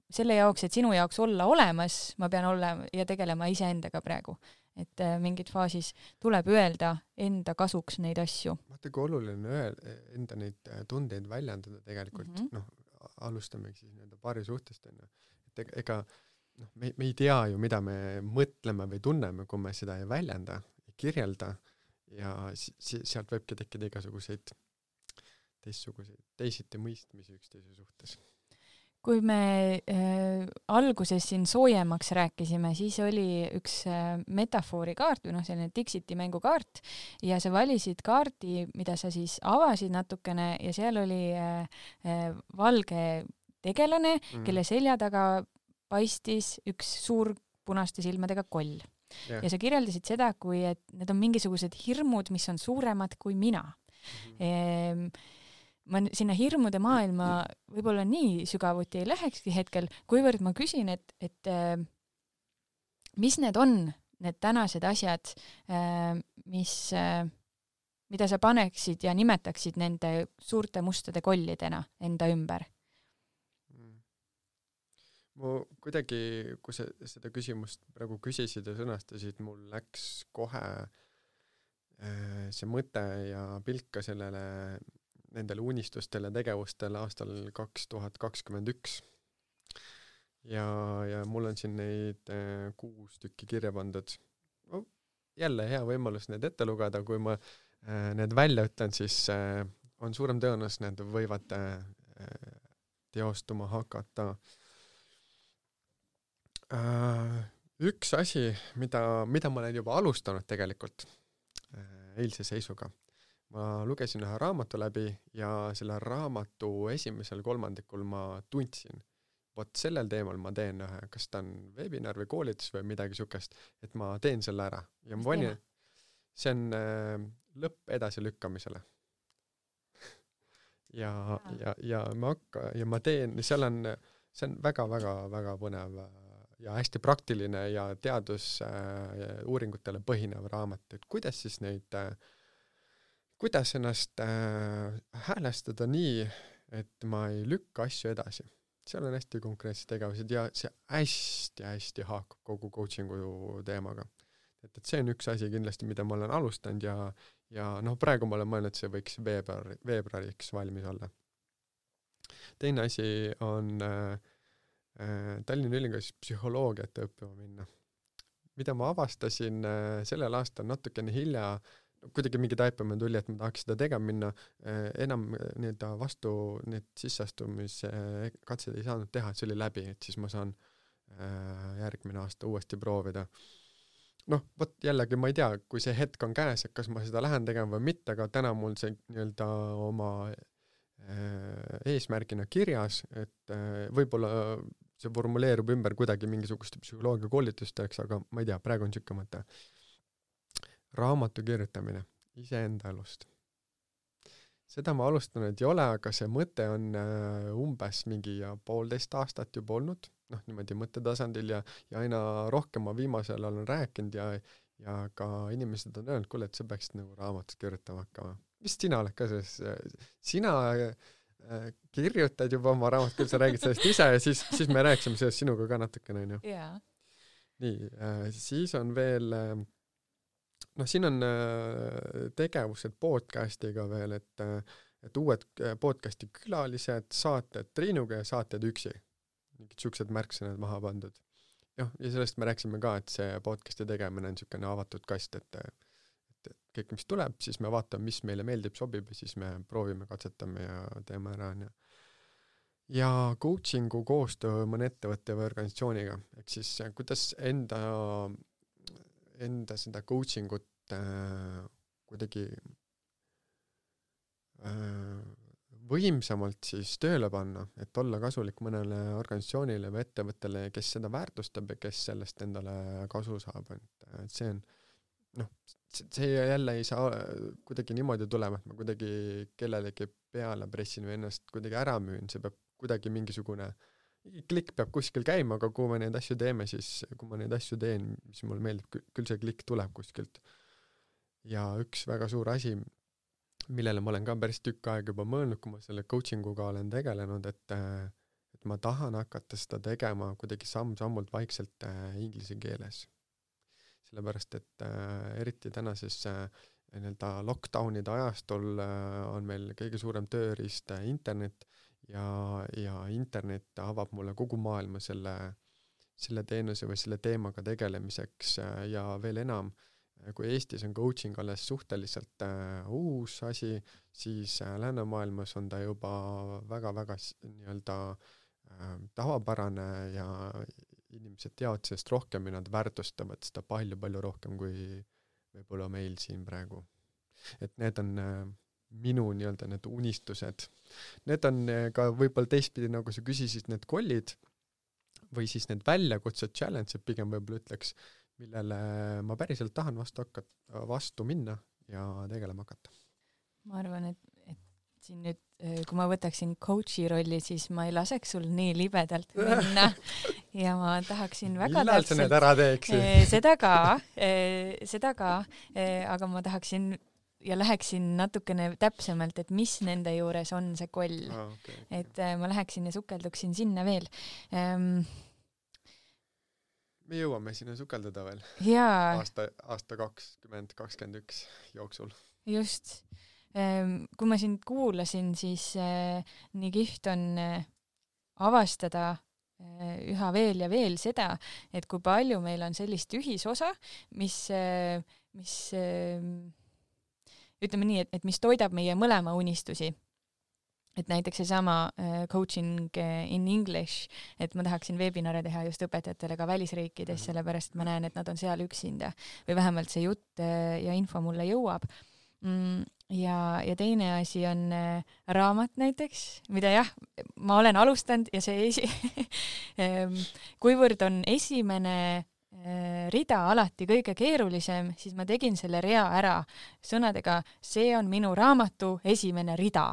selle jaoks, et sinu jaoks olla olemas, ma pean olema ja tegelema iseendaga praegu. Et mingid faasis tuleb öelda enda kasuks neid asju. Vaata, kui oluline enda neid tundeid väljendada tegelikult, alustame siis paari suhtest. Et ega me ei tea ju, mida me mõtleme või tunneme, kui me seda ei väljenda, ei kirjelda ja sealt võibki tekkida igasuguseid teisiti mõistmisi üksteise suhtes. Kui me alguses siin soojemaks rääkisime, siis oli üks metafoorikaart või selline Dixiti mängukaart ja sa valisid kaardi, mida sa siis avasid natukene ja seal oli valge tegelane, kelle selja taga paistis üks suur punaste silmadega koll. Ja sa kirjeldasid seda, kui et need on mingisugused hirmud, mis on suuremad kui mina. Ma sinna hirmude maailma võib-olla nii sügavuti ei lähekski hetkel, kuivõrd ma küsin, et mis need on, need tänased asjad, mida sa paneksid ja nimetaksid nende suurte mustade kollidena enda ümber? Mu kuidagi, kui seda küsimust praegu küsisid ja sõnastasid, mul läks kohe see mõte ja pilk ka nendele unistustele tegevustele aastal 2021. Ja mul on siin neid 6 tükki kirja pandud. Jälle hea võimalus need ette lugeda, kui ma need välja ütlen, siis on suurem tõenäosus, need võivad teostuma hakata. Üks asi, mida ma olen juba alustanud tegelikult eilse seisuga. Ma lugesin ühe raamatu läbi ja selle raamatu esimesel kolmandikul ma tundsin, vot sellel teemal ma teen ühe, kas ta on webinar või koolitus või midagi sukest, et ma teen selle ära. Ja ma panin, see on lõpp edasi lükkamisele. ja ma teen, see on väga põnev ja hästi praktiline ja uuringutele põhinev raamat, et kuidas ennast häälestada nii, et ma ei lükka asju edasi. Seal on hästi konkreetsed tegevused ja see hästi haakub kogu coachingu teemaga. Et see on üks asi kindlasti, mida ma olen alustanud ja praegu ma olen mõelnud, et see võiks veebruariks valmis olla. Teine asi on Tallinna Ülikoolis psühholoogiat õppima minna. Mida ma avastasin sellel aastal natukene hilja, kuidagi mingi taipamine tuli, et ma tahaks seda tegema minna, enam vastu need sisseastumise katsed ei saanud teha, et see oli läbi, et siis ma saan järgmine aasta uuesti proovida. Vot jällegi ma ei tea, kui see hetk on käes, et kas ma seda lähen tegema või mitte, aga täna mul see oma eesmärgina kirjas, et võib-olla see formuleerub ümber kuidagi mingisuguste psühholoogia koolitusteks, aga ma ei tea, praegu on siuke mõte. Raamatu kirjutamine iseenda elust. Seda ma alustanud ei ole, aga see mõte on umbes mingi 1,5 aastat juba olnud, niimoodi mõttetasandil ja aina rohkem ma viimasel olen rääkinud ja ka inimesed on öelnud, kuule, et sa peaksid raamatut kirjutama hakkama. Vist sina oled ka sina kirjutad juba oma raamat, küll sa räägid sellest ise ja siis me rääksime sellest sinuga ka natukene. Yeah. Nii, siis on veel, siin on tegevused podcastiga veel, et uued podcasti külalised, saated Triinuga ja saated üksi. Mingid siuksed märksõnad maha pandud. Ja sellest me rääksime ka, et see podcasti tegemine on siukene avatud kast, et kõik, mis tuleb, siis me vaatame, mis meile meeldib, sobib ja siis me proovime, katsetame ja teeme ära. Ja coachingu koostöö mõne ettevõtte või organisatsiooniga. Ehk siis kuidas enda seda coachingut kuidagi võimsamalt siis tööle panna, et olla kasulik mõnele organisatsioonile või ettevõttele, kes seda väärtustab ja kes sellest endale kasu saab. Et see on see jälle ei saa kuidagi niimoodi tulema, et ma kuidagi kellelegi peale pressin või ennast kuidagi ära müün, see peab kuidagi mingisugune klikk peab kuskil käima, aga kui me neid asju teeme, siis kui ma neid asju teen, mis mulle meeldib, küll see klikk tuleb kuskilt. Ja üks väga suur asi, millele ma olen ka päris tükk aega juba mõelnud, kui ma selle coachinguga olen tegelenud, et ma tahan hakata seda tegema kuidagi samm-sammult vaikselt inglise keeles. Sellepärast, et eriti tänases nii-öelda lockdownide ajastul on meil kõige suurem tööriist internet ja internet avab mulle kogu maailma selle teenuse või selle teemaga tegelemiseks ja veel enam, kui Eestis on coaching alles suhteliselt uus asi, siis läänemaailmas on ta juba väga-väga nii-öelda tavapärane ja inimesed teavad sellest rohkem ja nad väärtustavad seda palju-palju rohkem kui võib-olla meil siin praegu. Et need on minu nii-öelda need unistused. Need on ka võib-olla teistpidi, nagu sa küsisid, need kollid või siis need väljakutsed, challenge, pigem võib-olla ütleks, millele ma päriselt tahan vastu minna ja tegelema hakata. Ma arvan, et siin nüüd, kui ma võtaksin coachi rolli, siis ma ei laseks sul nii libedalt minna ja ma tahaksin väga millal sa need ära teeksid? Seda ka, aga ma tahaksin ja läheksin natukene täpsemalt, et mis nende juures on see koll. Okay. Et ma läheksin ja sukelduksin sinna veel. Me jõuame sinna sukeldada veel. Aasta 2021 jooksul. Just. Kui ma sind kuulasin, siis nii kihvt on avastada üha veel ja veel seda, et kui palju meil on sellist ühisosa, mis ütleme nii, et mis toidab meie mõlema unistusi. Et näiteks seesama coaching in English, et ma tahaksin webinare teha just õpetajatele ka välisriikides, sellepärast ma näen, et nad on seal üksinda või vähemalt see jutt ja info mulle jõuab. Ja teine asi on raamat näiteks, mida jah, ma olen alustanud ja see kuivõrd on esimene rida alati kõige keerulisem, siis ma tegin selle rea ära sõnadega, see on minu raamatu esimene rida,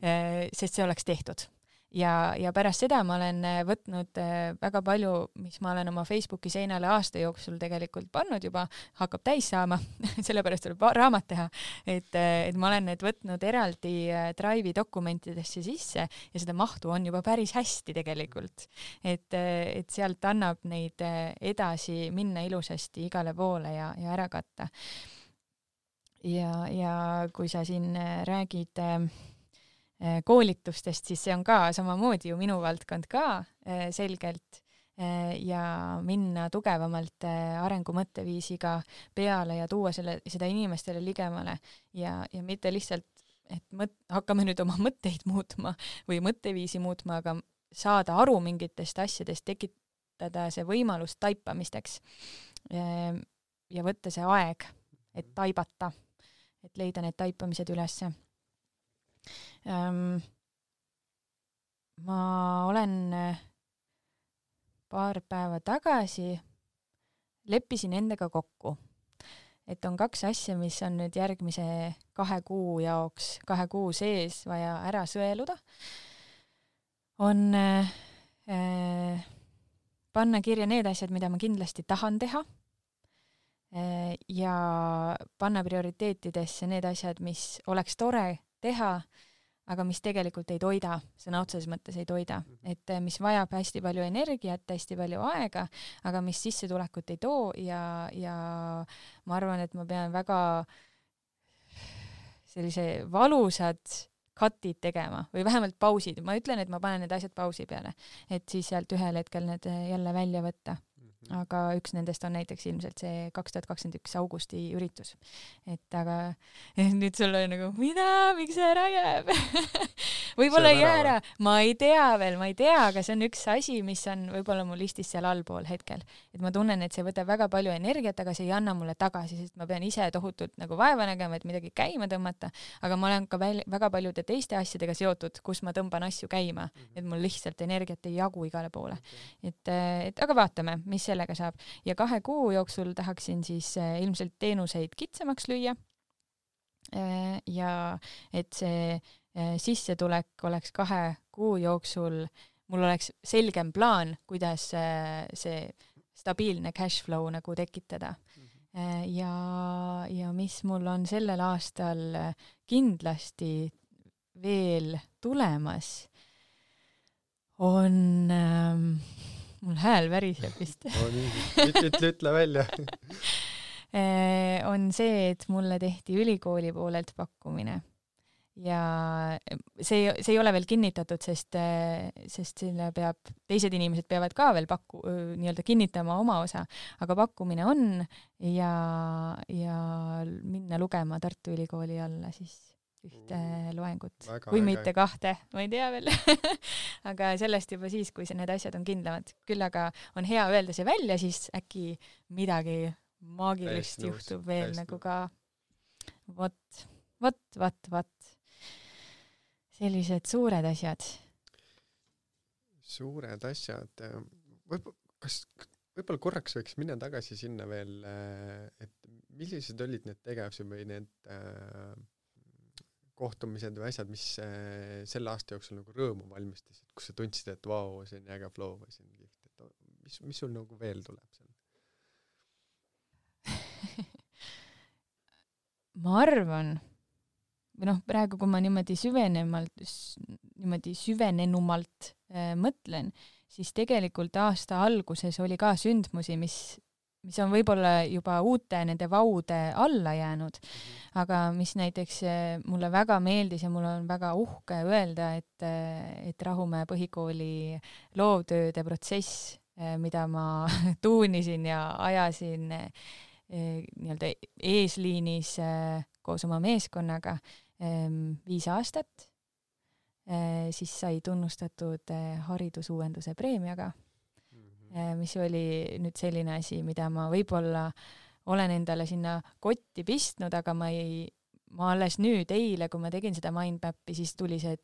sest see oleks tehtud. Ja pärast seda ma olen võtnud väga palju, mis ma olen oma Facebooki seinale aasta jooksul tegelikult pannud juba, hakkab täis saama, sellepärast tuleb raamat teha, et ma olen need võtnud eraldi Drive'i dokumentidesse sisse ja seda mahtu on juba päris hästi tegelikult. Et sealt annab neid edasi minna ilusasti igale poole ja ära katta. Ja kui sa siin räägid koolitustest, siis see on ka samamoodi ju minu valdkond ka selgelt ja minna tugevamalt arengumõtteviisiga peale ja tuua seda inimestele ligemale ja mitte lihtsalt, et hakkame nüüd oma mõtteid muutma või mõtteviisi muutma, aga saada aru mingitest asjadest, tekitada see võimalus taipamisteks ja võtta see aeg, et taibata, et leida need taipamised ülesse. Ma olen paar päeva tagasi leppisin endaga kokku, et on 2 asja, mis on nüüd järgmise 2 kuu jaoks, 2 kuu sees vaja ära sõeluda. On panna kirja need asjad, mida ma kindlasti tahan teha ja panna prioriteetidesse need asjad, mis oleks tore teha, aga mis tegelikult ei toida, sõna otseses mõttes ei toida. Et mis vajab hästi palju energiat, hästi palju aega, aga mis sissetulekut ei too ja ma arvan, et ma pean väga sellise valusad cut'id tegema või vähemalt pausid. Ma ütlen, et ma panen need asjad pausi peale, et siis sealt ühel hetkel need jälle välja võtta. Aga üks nendest on näiteks ilmselt see 2021 augusti üritus. Et aga nüüd sul on nagu, miks see ära jääb? Võib-olla ei jää ära, ma ei tea, aga see on üks asi, mis on võib-olla mul listis seal allpool hetkel. Et ma tunnen, et see võtab väga palju energiat, aga see ei anna mulle tagasi, sest ma pean ise tohutult nagu vaeva nägema, et midagi käima tõmmata, aga ma olen ka väga paljude teiste asjadega seotud, kus ma tõmban asju käima, et mul lihtsalt energiat ei jagu igale poole. Et aga vaatame, mis sellega saab. Ja 2 kuu jooksul tahaksin siis ilmselt teenuseid kitsamaks lüüa ja et see sissetulek oleks 2 kuu jooksul, mul oleks selgem plaan, kuidas see stabiilne cash flow nagu tekitada. Ja mis mul on sellel aastal kindlasti veel tulemas, on mul hääl väriseb vist. Ütle välja. On see, et mulle tehti ülikooli poolelt pakkumine. Ja see ei ole veel kinnitatud, sest selle teised inimesed peavad ka veel nii-öelda kinnitama oma osa, aga pakkumine on ja minna lugema Tartu Ülikooli alla siis ühte loengut. Või mitte 2, ma ei tea veel. Aga sellest juba siis, kui need asjad on kindlamad. Küll aga on hea öelda see välja, siis äkki midagi maagilist juhtub veel nagu ka. Vot. Sellised suured asjad. Suured asjad. Võib-olla korraks võiks minna tagasi sinna veel, et millised olid need tegevused või need kohtumised või asjad, mis selle aasta jooksul nagu rõõmu valmistasid, kus sa tundsid, et vau, see on äge flow või see on kihvt. Mis sul nagu veel tuleb seal? Ma arvan, või praegu, kui ma niimoodi süvenenumalt mõtlen, siis tegelikult aasta alguses oli ka sündmusi, mis on võib-olla juba uute nende vaude alla jäänud, aga mis näiteks mulle väga meeldis ja mul on väga uhke öelda, et Rahumäe põhikooli loovtööde protsess, mida ma tuunisin ja ajasin nii-öelda eesliinis koos oma meeskonnaga 5 aastat, siis sai tunnustatud haridusuuenduse preemiaga, mis oli nüüd selline asi, mida ma võib-olla olen endale sinna kotti pistnud, aga ma alles nüüd eile, kui ma tegin seda mindmap'i, siis tuli see, et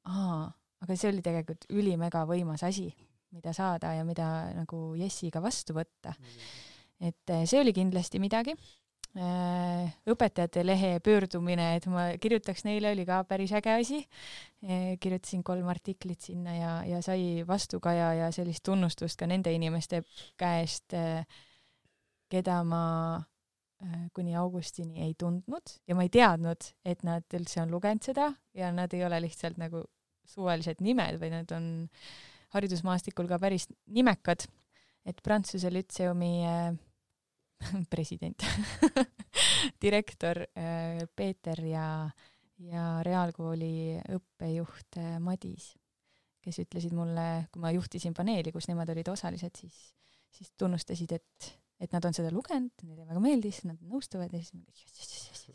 aga see oli tegelikult ülimega võimas asi, mida saada ja mida nagu Jessiga vastu võtta. Et see oli kindlasti midagi. Õpetajate lehe pöördumine, et ma kirjutaks neile, oli ka päris äge asi. Kirjutasin 3 artiklit sinna ja sai vastukaja ja sellist tunnustust ka nende inimeste käest, keda ma kuni augustini ei tundnud ja ma ei teadnud, et nad üldse on lugenud seda ja nad ei ole lihtsalt nagu suvalised nimed, või nad on haridusmaastikul ka päris nimekad, et Prantsuse Lütseumi president, direktor Peeter ja reaalkooli õppejuht Madis, kes ütlesid mulle, kui ma juhtisin paneeli, kus nemad olid osalised, siis tunnustasid, et nad on seda lugenud, neile väga meeldis, nad nõustuvad ja siis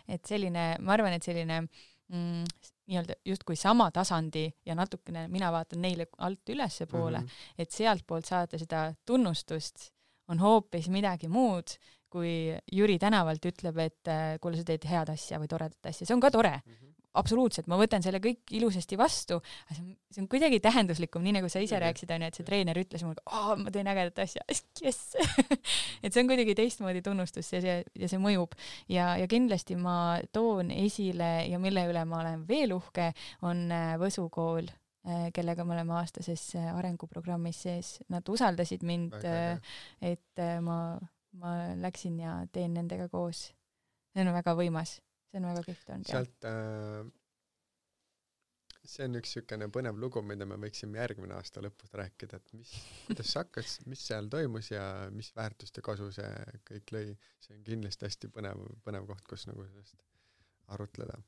et selline, ma arvan, et selline nii-öelda justkui sama tasandi ja natukene mina vaatan neile alt ülesse poole, et sealt poolt saada seda tunnustust on hoopis midagi muud, kui Jüri tänavalt ütleb, et kuule, sa teed head asja või toredat asja. See on ka tore. Absoluutselt, ma võtan selle kõik ilusasti vastu, aga see on kuidagi tähenduslikum, nii nagu sa ise rääkisid, et see treener ütles mulle, ma teen ägedat asja, yes! Et see on kuidagi teistmoodi tunnustus ja see mõjub. Ja kindlasti ma toon esile ja mille üle ma olen veel uhke, on Võsu kool, kellega me oleme aastases arenguprogrammis sees. Nad usaldasid mind, et ma läksin ja teen nendega koos. See on väga võimas. See on väga kihvt olnud. Sealt, see on üks sükene põnev lugu, mida me võiksime järgmine aasta lõpus rääkida, et kuidas sa hakkas, mis seal toimus ja mis väärtust ja kasu see kõik lõi. See on kindlasti hästi põnev koht, kus nagu sellest arutleda.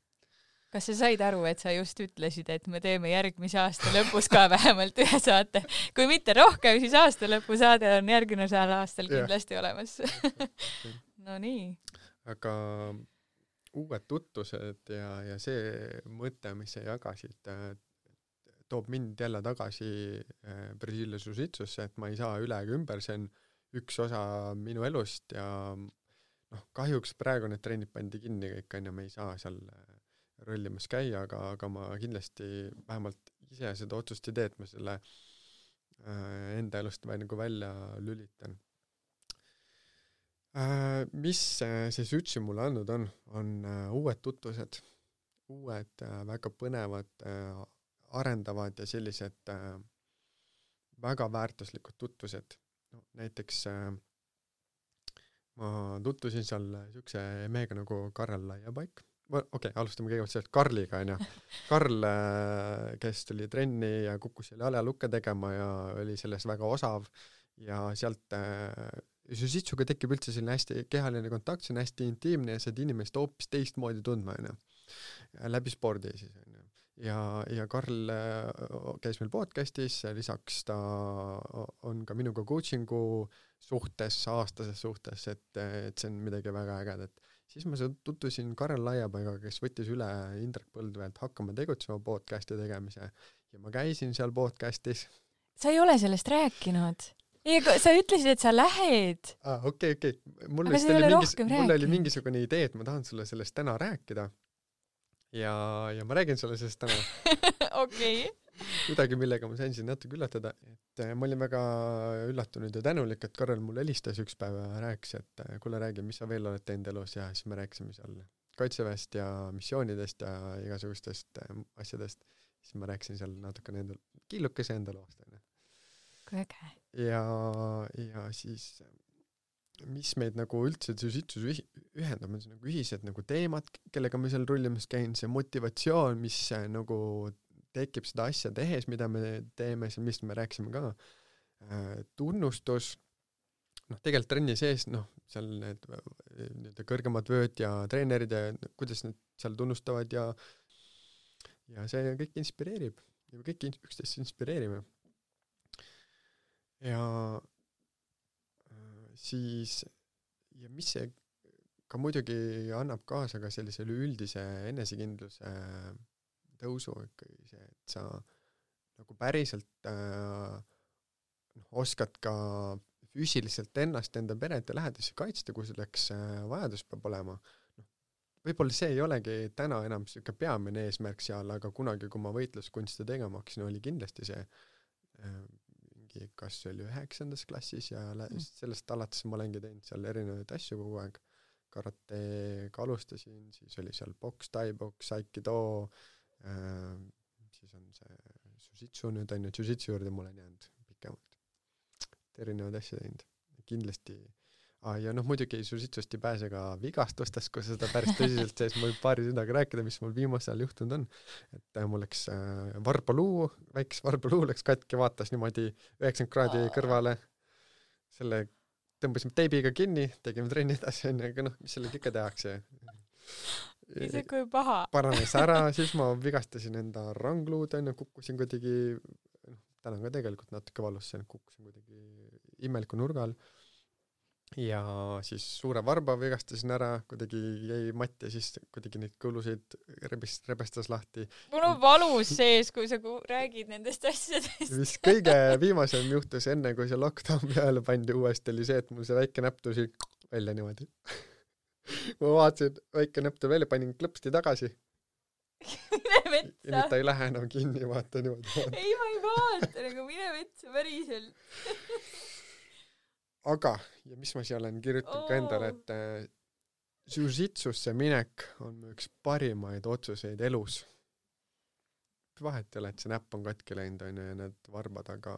Kas sa said aru, et sa just ütlesid, et me teeme järgmise aasta lõpus ka vähemalt ühe saate? Kui mitte rohkem, siis aasta lõpu saade on järgmisel aastal kindlasti olemas. No nii. Aga uued tutvused ja see mõte, mis sa jagasid, toob mind jälle tagasi Brasilia Jiu-Jitsusse, et ma ei saa üle ega ümber, see on üks osa minu elust ja kahjuks praegu need trennid pandi kinni kõik, me ei saa seal rollimas käia, aga ma kindlasti vähemalt ise seda otsust ei tee, et ma selle enda elust nagu välja lülitan. Mis see Sütsi mulle andnud on uued tutvused, uued väga põnevad, arendavad ja sellised väga väärtuslikud tutvused. No, näiteks ma tutvusin seal niisuguse mehega nagu Karel Laiapaik. Okei, alustame kõigepealt sellest Karliga, on ju. Karl, kes tuli trenni ja kukkus selle jaljalukke tegema ja oli selles väga osav ja sealt Jiu-Jitsuga tekib üldse selline hästi kehaline kontakt, see on hästi intiimne ja saad inimest hoopis teistmoodi tundma, on ju. Läbi spordi siis, on ju. Ja Karl käis meil podcastis, lisaks ta on ka minuga coachingu suhtes, aastases suhtes, et see on midagi väga ägedat. Siis ma tutvusin Karel Laiapaiga, kes võttis üle Indrek Põldveelt Hakkama tegutsema podcasti tegemise ja ma käisin seal podcastis. Sa ei ole sellest rääkinud? Sa ütlesid, et sa lähed. Okei. Mul oli mingisugune idee, et ma tahan sulle sellest täna rääkida. Ja ma räägin sulle sellest täna. Okei. Midagi, millega ma sain siin natuke üllatada. Et ma olin väga üllatunud ja tänulik, et Karel mulle helistas üks päev ja rääkis, et kuule räägi, mis sa veel oled teinud elus ja siis me rääkisime seal kaitseväest ja missioonidest ja igasugustest asjadest. Siis ma rääkisin seal natukene kiilukese enda loost. Kui äge. Ja siis mis meid nagu üldse Jiu-Jitsus ühendab, on see nagu ühised nagu teemad, kellega me seal rullimas käin, see motivatsioon, mis nagu tekib seda asja tehes, mida me teeme, mis me rääkisime ka, tunnustus, tegelikult trenni sees, seal need kõrgemad vööd ja treenerid ja kuidas need seal tunnustavad ja see kõik inspireerib ja kõik üksteist inspireerime. Ja siis mis see ka muidugi annab kaasa ka sellise üldise enesekindluse tõusu ikkagi see, et sa nagu päriselt oskad ka füüsiliselt ennast, enda peret ja lähedasi kaitsta, kui selleks vajadus peab olema. Võib-olla see ei olegi täna enam siuke peamine eesmärk seal, aga kunagi, kui ma võitluskunste tegema hakkasin, oli kindlasti see kas oli 9. klassis ja sellest alates ma olengi teinud seal erinevaid asju kogu aeg. Karatega alustasin, siis oli seal boks, tai-boks, aikido, siis on see Jiu-Jitsu nüüd on ju, Jiu-Jitsu juurde mul on jäänud pikemalt. Erinevaid asju teinud. Kindlasti ja muidugi Jiu-Jitsust ei pääse ka vigastustest, kui seda päris tõsiselt sees mul paari sõnaga rääkida, mis mul viimasel ajal juhtunud on. Et mul läks varbaaluu, väikes varbaaluu läks katki, vaatas niimoodi 90 kraadi kõrvale. Selle tõmbasime teibiga kinni, tegime trenni edasi, aga mis sellega ikka tehakse. Ise kui paha. Paranes ära, siis ma vigastasin enda rangluud, kukkusin kuidagi, täna ka tegelikult natuke valus, kukkusin kuidagi imeliku nurgal. Ja siis suure varba vigastasin ära, kuidagi jäi matt ja siis kuidagi neid kõlusid rebestas lahti. Mul on valus sees, kui sa räägid nendest asjadest. Mis kõige viimasem juhtus enne, kui see lockdown peale pandi uuesti, oli see, et mul see väike näpp tõusi välja niimoodi. Ma vaatasin, väike näpp tõu välja, panin klõpsti tagasi. Mine metsa. Ja nüüd ta ei lähe enam kinni, vaata niimoodi. Ei, ma ei vaata, nagu mine metsa päriselt. Aga, ja mis ma siia olen kirjutanud ka endale, et Jiu-Jitsusse minek on üks parimaid otsuseid elus. Vahet ei ole, et see näpp on katki läinud ja need varbad, aga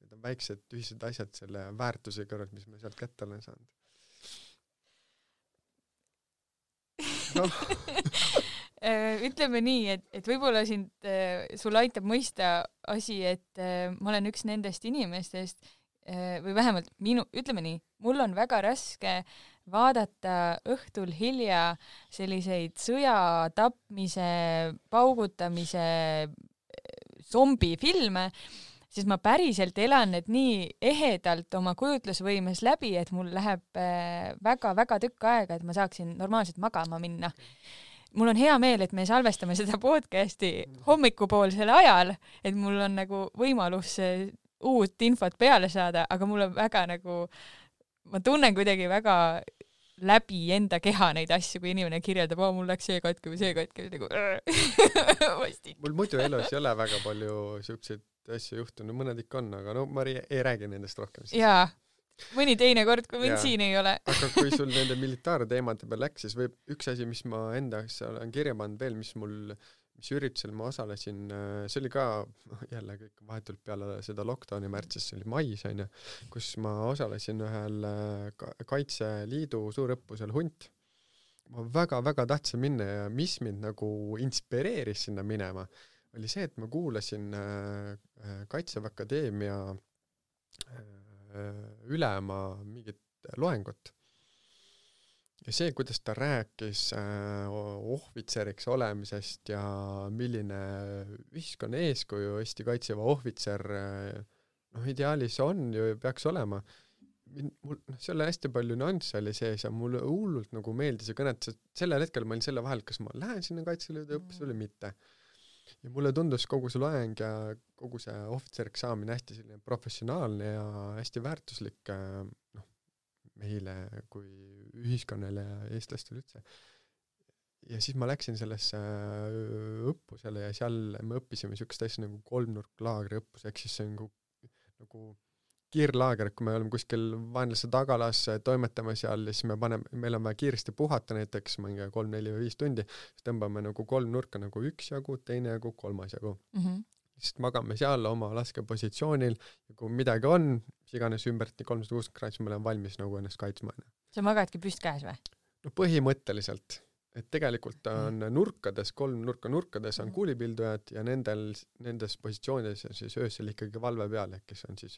need on väiksed ühised asjad selle väärtuse kõrvalt, mis ma sealt kätte olen saanud. Ütleme nii, et võib-olla sul aitab mõista asi, et ma olen üks nendest inimestest, või vähemalt ütleme nii, mul on väga raske vaadata õhtul hilja selliseid sõja, tapmise, paugutamise zombifilme, siis ma päriselt elan need nii ehedalt oma kujutlusvõimes läbi, et mul läheb väga-väga tükk aega, et ma saaksin normaalselt magama minna. Mul on hea meel, et me salvestame seda podcasti hommikupoolsel ajal, et mul on nagu võimalus uut infot peale saada, aga mul on väga nagu, ma tunnen kuidagi väga läbi enda keha neid asju, kui inimene kirjeldab, mul läks see katki või see katki, nagu vastik. Mul muidu elus ei ole väga palju siukseid asju juhtunud, mõned ikka on, aga no ma ei räägi nendest rohkem siis. Jaa, mõni teine kord, kui mind siin ei ole. Aga kui sul nende militaarteemade peal läks, siis võib üks asi, mis ma enda olen kirja pannud veel, mis üritusel ma osalesin, see oli ka jälle kõik vahetult peale seda lockdowni märtsis, see oli mais, kus ma osalesin ühel Kaitseliidu suurõppusel Hunt. Ma väga-väga tahtsin minna ja mis mind nagu inspireeris sinna minema, oli see, et ma kuulasin Kaitseväe Akadeemia ülema mingit loengut. Ja see, kuidas ta rääkis ohvitseriks olemisest ja milline ühiskonna eeskuju Eesti Kaitseväe ohvitser ideaalis on ju peaks olema. See oli hästi palju nüansse oli sees ja mulle hullult nagu meeldis ja kõnet, sellel hetkel ma olin selle vahel, kas ma lähen sinna Kaitseliidu õppesse või mitte. Ja mulle tundus kogu see loeng ja kogu see ohvitseriks saamine hästi selline professionaalne ja hästi väärtuslik meile kui ühiskonnale ja eestlastele üldse. Ja siis ma läksin sellesse õppusele ja seal me õppisime niisugust asja nagu kolmnurklaagri õppus, ehk siis see on nagu kiirlaager, kui me oleme kuskil vaenlase tagalas, toimetame seal ja siis meil on vaja kiiresti puhata näiteks 3, 4 või 5 tundi, siis tõmbame nagu 3 nurka nagu 1 jagu, 2 jagu, 3 jagu. Siis magame seal oma laskepositsioonil ja kui midagi on, mis iganes ümbert 360 kraadi, siis me oleme valmis nagu ennast kaitsma. Sa magadki püst käes või? No põhimõtteliselt. Et tegelikult on nurkades, 3 nurkades on kuulipildujad ja nendes positsioonides on siis öösel ikkagi valve peal, kes on siis,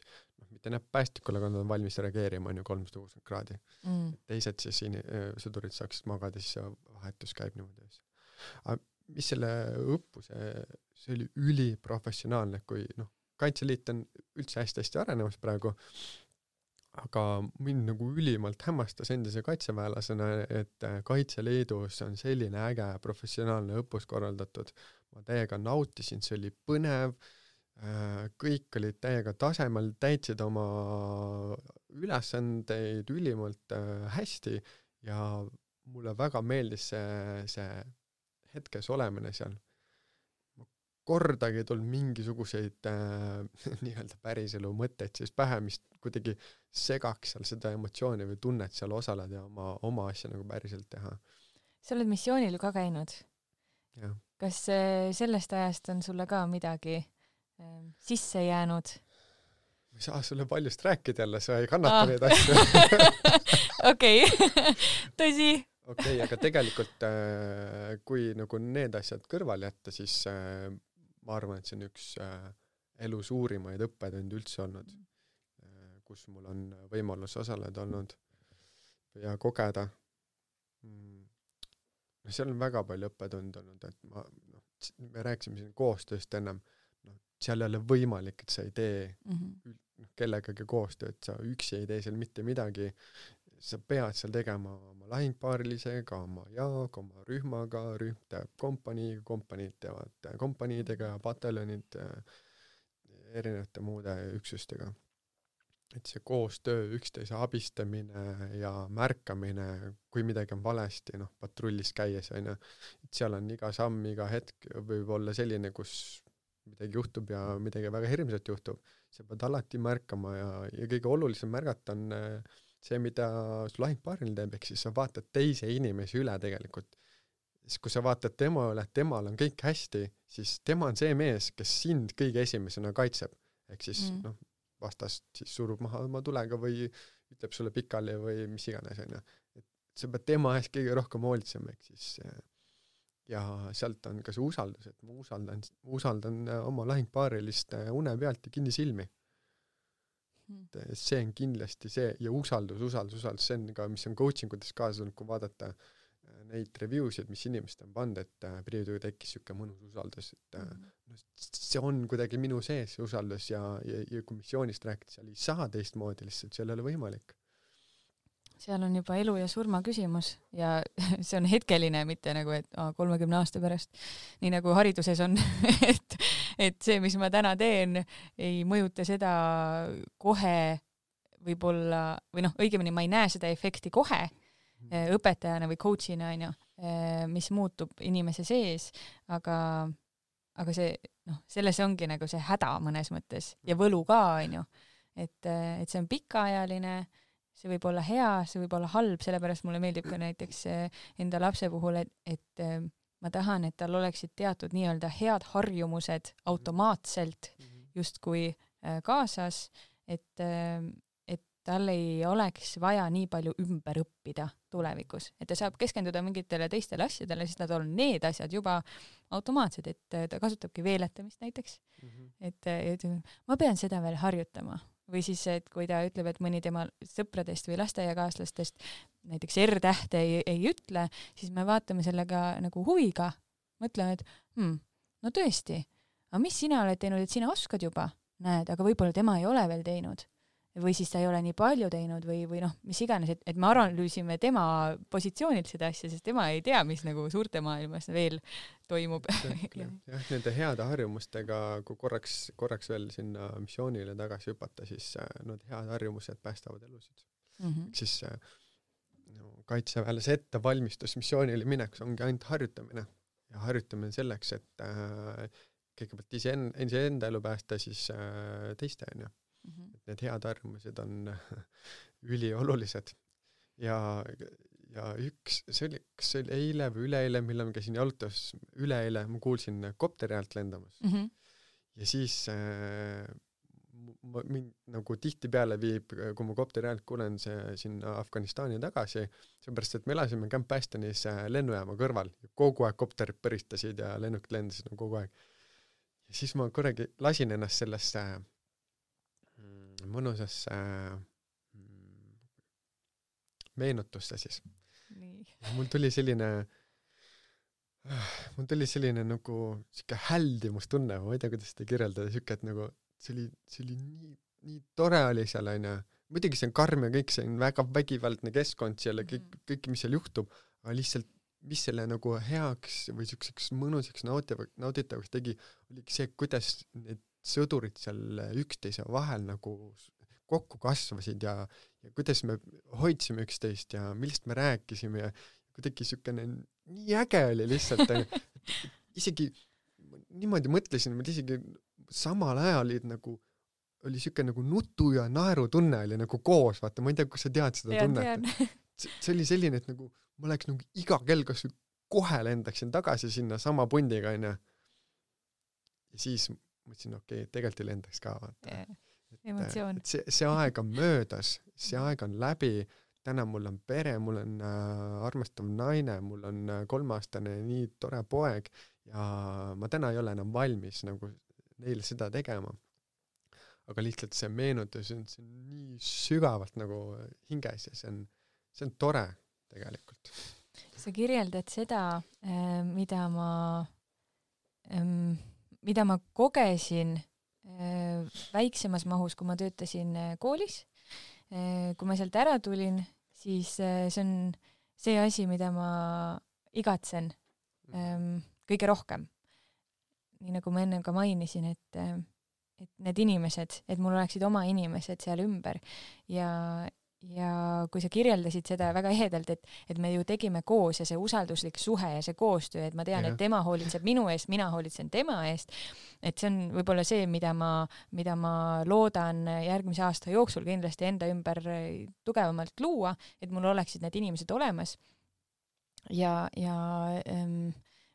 mitte näeb päästikule, aga nad on valmis reageerima 360 kraadi. Teised siis sõdurid saaksid magada, siis vahetus käib niimoodi. Aga mis selle õppuse, see oli üliprofessionaalne, kui Kaitseliit on üldse hästi arenemas praegu, aga mind nagu ülimalt hämmastas endise kaitseväelasena, et Kaitseliidus on selline äge professionaalne õppus korraldatud. Ma täiega nautisin, see oli põnev, kõik olid täiega tasemel, täitsid oma ülesandeid ülimalt hästi ja mulle väga meeldis see hetkes olemine seal. Kordagi ei tulnud mingisuguseid nii-öelda päriselu mõtteid siis pähe, mis kuidagi segaks seal seda emotsiooni või tunnet seal osaleda ja oma asja nagu päriselt teha. Sa oled missioonil ka käinud. Ja. Kas sellest ajast on sulle ka midagi sisse jäänud? Ma ei saa sulle paljust rääkida jälle, sa ei kannata neid asju. Okei, tõsi. Okei, aga tegelikult kui nagu need asjad kõrval jätta, siis ma arvan, et see on üks elu suurimaid õppetundi üldse olnud, kus mul on võimalus osaleda olnud ja kogeda. Seal on väga palju õppetund olnud, et me rääkisime siin koostööst ennem, seal ei ole võimalik, et sa ei tee kellegagi koostööd, sa üksi ei tee seal mitte midagi, sa pead seal tegema oma lahingpaarilisega, oma jaag, oma rühmaga, rühm teeb kompaniiga, kompaniid teevad kompaniidega, pataljonid erinevate muude üksustega. Et see koostöö, üksteise abistamine ja märkamine, kui midagi on valesti, patrullis käies, et seal on iga samm, iga hetk võib olla selline, kus midagi juhtub ja midagi väga hirmsat juhtub. Sa pead alati märkama ja kõige olulisem märgata on see, mida su lahingpaaril teeb, ehk siis sa vaatad teise inimesi üle tegelikult. Siis kui sa vaatad tema üle, et temal on kõik hästi, siis tema on see mees, kes sind kõige esimesena kaitseb. Ehk siis vastast siis surub maha oma tulega või ütleb sulle pikali või mis iganes. Et sa pead tema ees kõige rohkem hoolitsema, ehk siis ja sealt on ka see usaldus, et ma usaldan oma lahingpaarilist une pealt ja kinni silmi. See on kindlasti see ja usaldus, see on ka, mis on coachingutes kaasa tulnud, kui vaadata neid reviewsid, mis inimesed on pannud, et priiduga tekkis siuke mõnus usaldus, et see on kuidagi minu sees see usaldus ja kui missioonist rääkida, seal ei saa teistmoodi lihtsalt, seal ei ole võimalik. Seal on juba elu ja surma küsimus ja see on hetkeline, mitte nagu, et 30 aasta pärast, nii nagu hariduses on, et see, mis ma täna teen, ei mõjuta seda kohe võib-olla, või õigemini ma ei näe seda efekti kohe õpetajana või coachina, mis muutub inimese sees, aga aga see, selles ongi nagu see häda mõnes mõttes ja võlu ka, on ju. Et see on pikaajaline, see võib olla hea, see võib olla halb, sellepärast mulle meeldib ka näiteks enda lapse puhul, et ma tahan, et tal oleksid teatud nii-öelda head harjumused automaatselt justkui kaasas, et tal ei oleks vaja nii palju ümber õppida tulevikus, et ta saab keskenduda mingitele teistele asjadele, siis nad on need asjad juba automaatsed, et ta kasutabki veeletamist näiteks, et ma pean seda veel harjutama. Või siis, et kui ta ütleb, et mõni tema sõpradest või lasteaiakaaslastest näiteks R-tähte ei ütle, siis me vaatame sellega nagu huviga, mõtleme, et no tõesti, aga mis sina oled teinud, et sina oskad juba, näed, aga võib-olla tema ei ole veel teinud. Või siis ta ei ole nii palju teinud või mis iganes, et me analüüsime tema positsioonilt seda asja, sest tema ei tea, mis nagu suurte maailmas veel toimub. jah, nende heade harjumustega, kui korraks veel sinna missioonile tagasi hüpata, siis need head harjumused päästavad elusid. Siis kaitseväelase ettevalmistus missioonile mineks ongi ainult harjutamine ja harjutamine selleks, et kõigepealt iseenda elu päästa, siis teiste on ju. Et need head harjumused on üliolulised ja see oli eile või üleeile, millal ma käisin jalutas, üleeile ma kuulsin kopteri häält lendamas ja siis mind nagu tihti peale viib, kui ma kopteri häält kuulen sinna Afganistani tagasi, seepärast, et me elasime Camp Bastonis lennujaama kõrval ja kogu aeg kopterid põristasid ja lennukid lendasid kogu aeg ja siis ma korragi lasin ennast sellesse mõnusasse meenutusse siis. Mul tuli selline nagu siuke häldimustunne, ma ei tea, kuidas seda kirjeldada, siuke, et nagu see oli nii tore oli seal, aina. Muidugi see on karm ja kõik, see on väga vägivaldne keskkond seal ja kõik, mis seal juhtub, aga lihtsalt, mis selle nagu heaks või siukseks mõnusaks nauditavaks tegi, oligi see, kuidas need sõdurid seal üksteise vahel nagu kokku kasvasid ja kuidas me hoidsime üksteist ja millest me rääkisime ja kuidagi siukene nii äge oli lihtsalt. Isegi niimoodi mõtlesin, et isegi samal ajal oli siuke nagu nutu ja naeru tunne oli nagu koos, vaata, ma ei tea, kus sa tead seda tunnet. See oli selline, et nagu ma oleks nagu iga kell kas kohe lendaksin tagasi sinna sama pundiga, ja siis mõtlesin, okei, tegelikult ei lendaks ka, vaata. Emotsioon. See aeg on möödas, see aeg on läbi, täna mul on pere, mul on armastav naine, mul on 3-aastane nii tore poeg ja ma täna ei ole enam valmis nagu neile seda tegema. Aga lihtsalt see meenutus on nii sügavalt nagu hinges ja see on tore tegelikult. Sa kirjeldad seda, mida ma kogesin väiksemas mahus, kui ma töötasin koolis. Kui ma sealt ära tulin, siis see on see asi, mida ma igatsen kõige rohkem. Nii nagu ma enne ka mainisin, et need inimesed, et mul oleksid oma inimesed seal ümber ja kui sa kirjeldasid seda väga ehedalt, et me ju tegime koos ja see usalduslik suhe ja see koostöö, et ma tean, et tema hoolitseb minu eest, mina hoolitsen tema eest, et see on võib-olla see, mida ma loodan järgmise aasta jooksul kindlasti enda ümber tugevamalt luua, et mul oleksid need inimesed olemas ja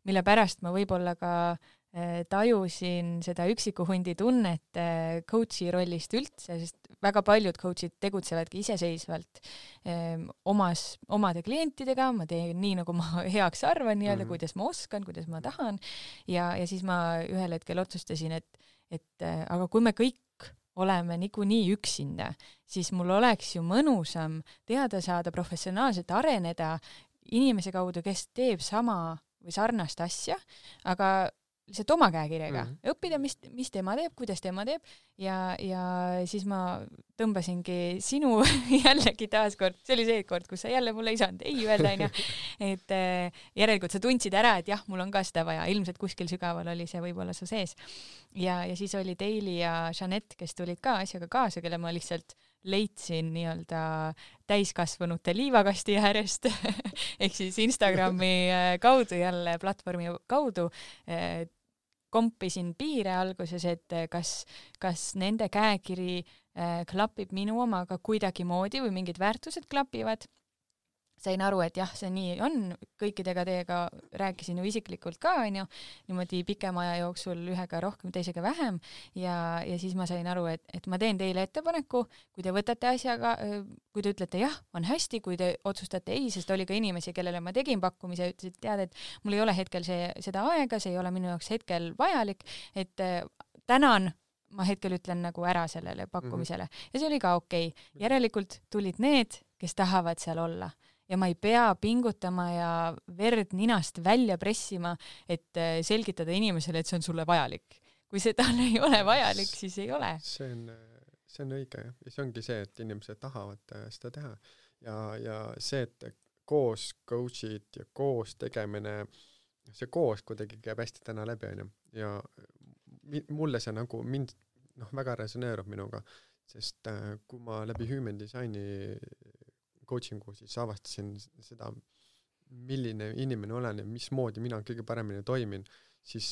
mille pärast ma võib-olla ka tajusin seda üksiku hundi tunnet coachi rollist üldse, sest väga paljud coachid tegutsevadki iseseisvalt omade klientidega, ma teen nii, nagu ma heaks arvan, nii-öelda, kuidas ma oskan, kuidas ma tahan ja siis ma ühel hetkel otsustasin, et aga kui me kõik oleme niikuinii üksinda, siis mul oleks ju mõnusam teada saada, professionaalselt areneda inimese kaudu, kes teeb sama või sarnast asja, aga lihtsalt oma käekirjaga õppida, mis tema teeb, kuidas tema teeb ja siis ma tõmbasingi sinu jällegi taaskord, see oli see kord, kus sa jälle mulle ei saanud ei öelda, et järelikult sa tundsid ära, et jah, mul on ka seda vaja, ilmselt kuskil sügaval oli see võib-olla su sees ja siis oli Daily ja Jeanette, kes tulid ka asjaga kaasa, kelle ma lihtsalt leidsin nii-öelda täiskasvanute liivakasti äärest ehk siis Instagrami kaudu jälle, platvormi kaudu kompisin piire alguses, et kas nende käekiri klapib minu omaga kuidagimoodi või mingid väärtused klapivad. Sain aru, et jah, see nii on, kõikidega teiega rääkisin ju isiklikult ka, niimoodi pikema aja jooksul ühega rohkem, teisega vähem ja siis ma sain aru, et ma teen teile ettepaneku, kui te võtate asjaga, kui te ütlete jah, on hästi, kui te otsustate ei, sest oli ka inimesi, kellele ma tegin pakkumise ja ütlesid, tead, et mul ei ole hetkel seda aega, see ei ole minu jaoks hetkel vajalik, et tänan, ma hetkel ütlen nagu ära sellele pakkumisele ja see oli ka okei. Järelikult tulid need, kes tahavad seal olla. Ja ma ei pea pingutama ja verd ninast välja pressima, et selgitada inimesele, et see on sulle vajalik. Kui see talle ei ole vajalik, siis ei ole. See on õige ja see ongi see, et inimesed tahavad seda teha. Ja see, et koos coach'id ja koos tegemine, see koos kuidagi käib hästi täna läbi, ja mulle see nagu mind väga resoneerub minuga, sest kui ma läbi Human Designi coachingu siis avastasin seda, milline inimene olen ja mismoodi mina kõige paremini toimin, siis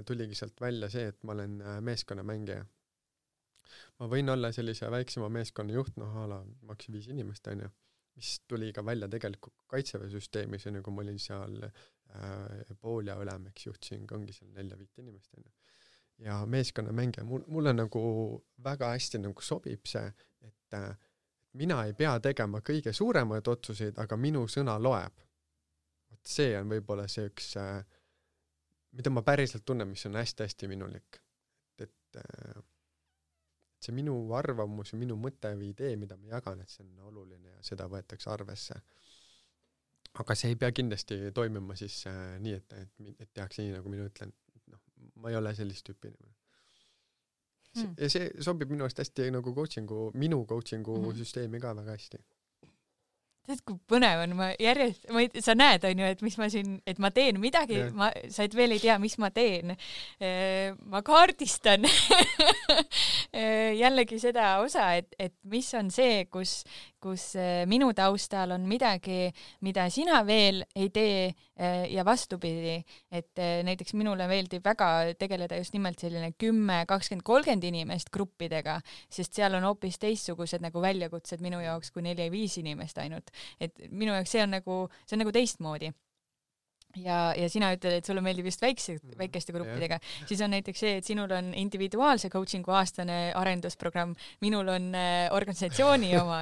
tuligi sealt välja see, et ma olen meeskonnamängija. Ma võin olla sellise väiksema meeskonna juht, maks 5 inimest, mis tuli ka välja tegelikult kaitseväesüsteemis, kui ma olin seal pool ja ülem, juhtisin ongi seal 4-5 inimest. Ja meeskonnamängija, mulle nagu väga hästi nagu sobib see, et mina ei pea tegema kõige suuremaid otsuseid, aga minu sõna loeb. See on võib-olla see üks, mida ma päriselt tunnen, mis on hästi-hästi minulik. Et see minu arvamus ja minu mõte või idee, mida ma jagan, et see on oluline ja seda võetakse arvesse. Aga see ei pea kindlasti toimima siis nii, et tehakse nii, nagu mina ütlen. Ma ei ole sellist tüüpi inimene. Ja see sobib minu eest hästi nagu minu coachingu süsteemi ka väga hästi. Tead, kui põnev on, sa näed, et mis ma siin, et ma teen midagi, sa et veel ei tea, mis ma teen. Ma kaardistan jällegi seda osa, et mis on see, kus minu taustal on midagi, mida sina veel ei tee ja vastupidi, et näiteks minule meeldib väga tegeleda just nimelt selline 10, 20, 30 inimest gruppidega, sest seal on hoopis teistsugused nagu väljakutsed minu jaoks kui 4-5 inimest ainult. Et minu jaoks see on nagu teistmoodi. Ja sina ütled, et sulle meeldib just väikeste gruppidega. Siis on näiteks see, et sinul on individuaalse coachingu aastane arendusprogramm, minul on organisatsiooni oma,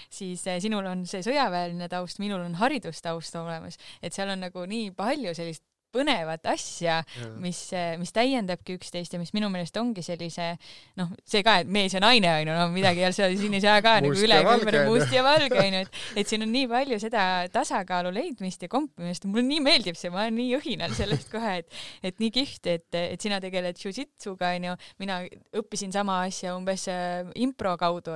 siis sinul on see sõjaväeline taust, minul on haridustaust olemas, et seal on nagu nii palju sellist põnevat asja, mis täiendabki üksteist ja mis minu meelest ongi sellise, see ka, et mees ja naine, midagi siin ei saa ka nagu üle must ja valge, et siin on nii palju seda tasakaalu leidmist ja kompimist, mulle nii meeldib see, ma olen nii õhinal sellest kohe, et nii kihvt, et sina tegeled jiu-jitsuga, mina õppisin sama asja umbes impro kaudu,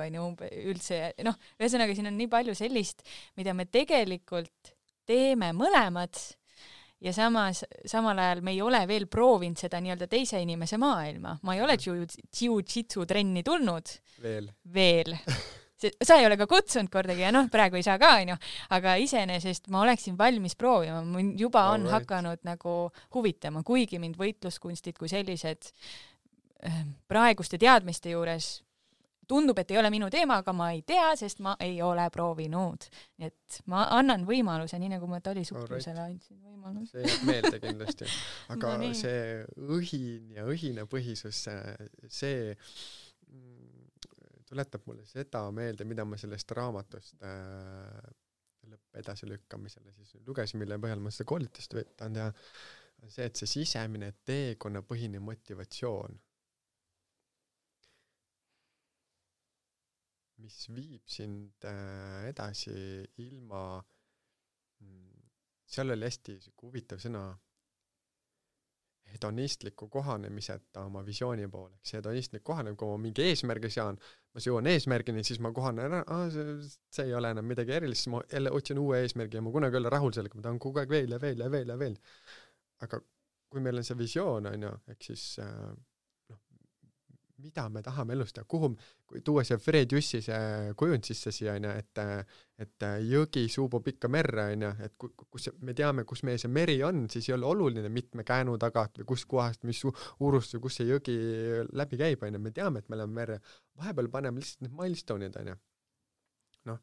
üldse, ühesõnaga siin on nii palju sellist, mida me tegelikult teeme mõlemad, ja samal ajal me ei ole veel proovinud seda nii-öelda teise inimese maailma. Ma ei ole jiu-jitsu trenni tulnud. Veel. Sa ei ole ka kutsunud kordagi ja praegu ei saa ka, aga iseenesest ma oleksin valmis proovima. Mind juba on hakanud nagu huvitama, kuigi mind võitluskunstid kui sellised praeguste teadmiste juures tundub, et ei ole minu teema, aga ma ei tea, sest ma ei ole proovinud. Nii et ma annan võimaluse, nii nagu ma Tali suhkrusele andsin võimaluse. See jääb meelde kindlasti. Aga see õhin ja õhine põhisus, see tuletab mulle seda meelde, mida ma sellest raamatust edasi lükkamisele siis lugesin, mille põhjal ma seda koolitust võtan teha. See, et see sisemine teekonna põhine motivatsioon, mis viib sind edasi ilma, seal oli hästi huvitav sõna, hedonistliku kohanemiseta oma visiooni poole. See hedonistlik kohanemine, kui ma mingi eesmärgi sean, ma jõuan eesmärgini, siis ma kohanen ära, see ei ole enam midagi erilist, siis ma jälle otsin uue eesmärgi ja ma kunagi olla rahul sellega, ma tahan kogu aeg veel ja veel ja veel ja veel. Aga kui meil on see visioon, ehk siis mida me tahame elus teha, kuhu, kui tuua see Fred Jussi see kujund sisse siia, et jõgi suubub ikka merre, et kus me teame, kus meie see meri on, siis ei ole oluline mitme käänu tagant või kus kohast, mis uurust või kus see jõgi läbi käib, me teame, et me oleme merre. Vahepeal paneme lihtsalt need milestone'id, noh,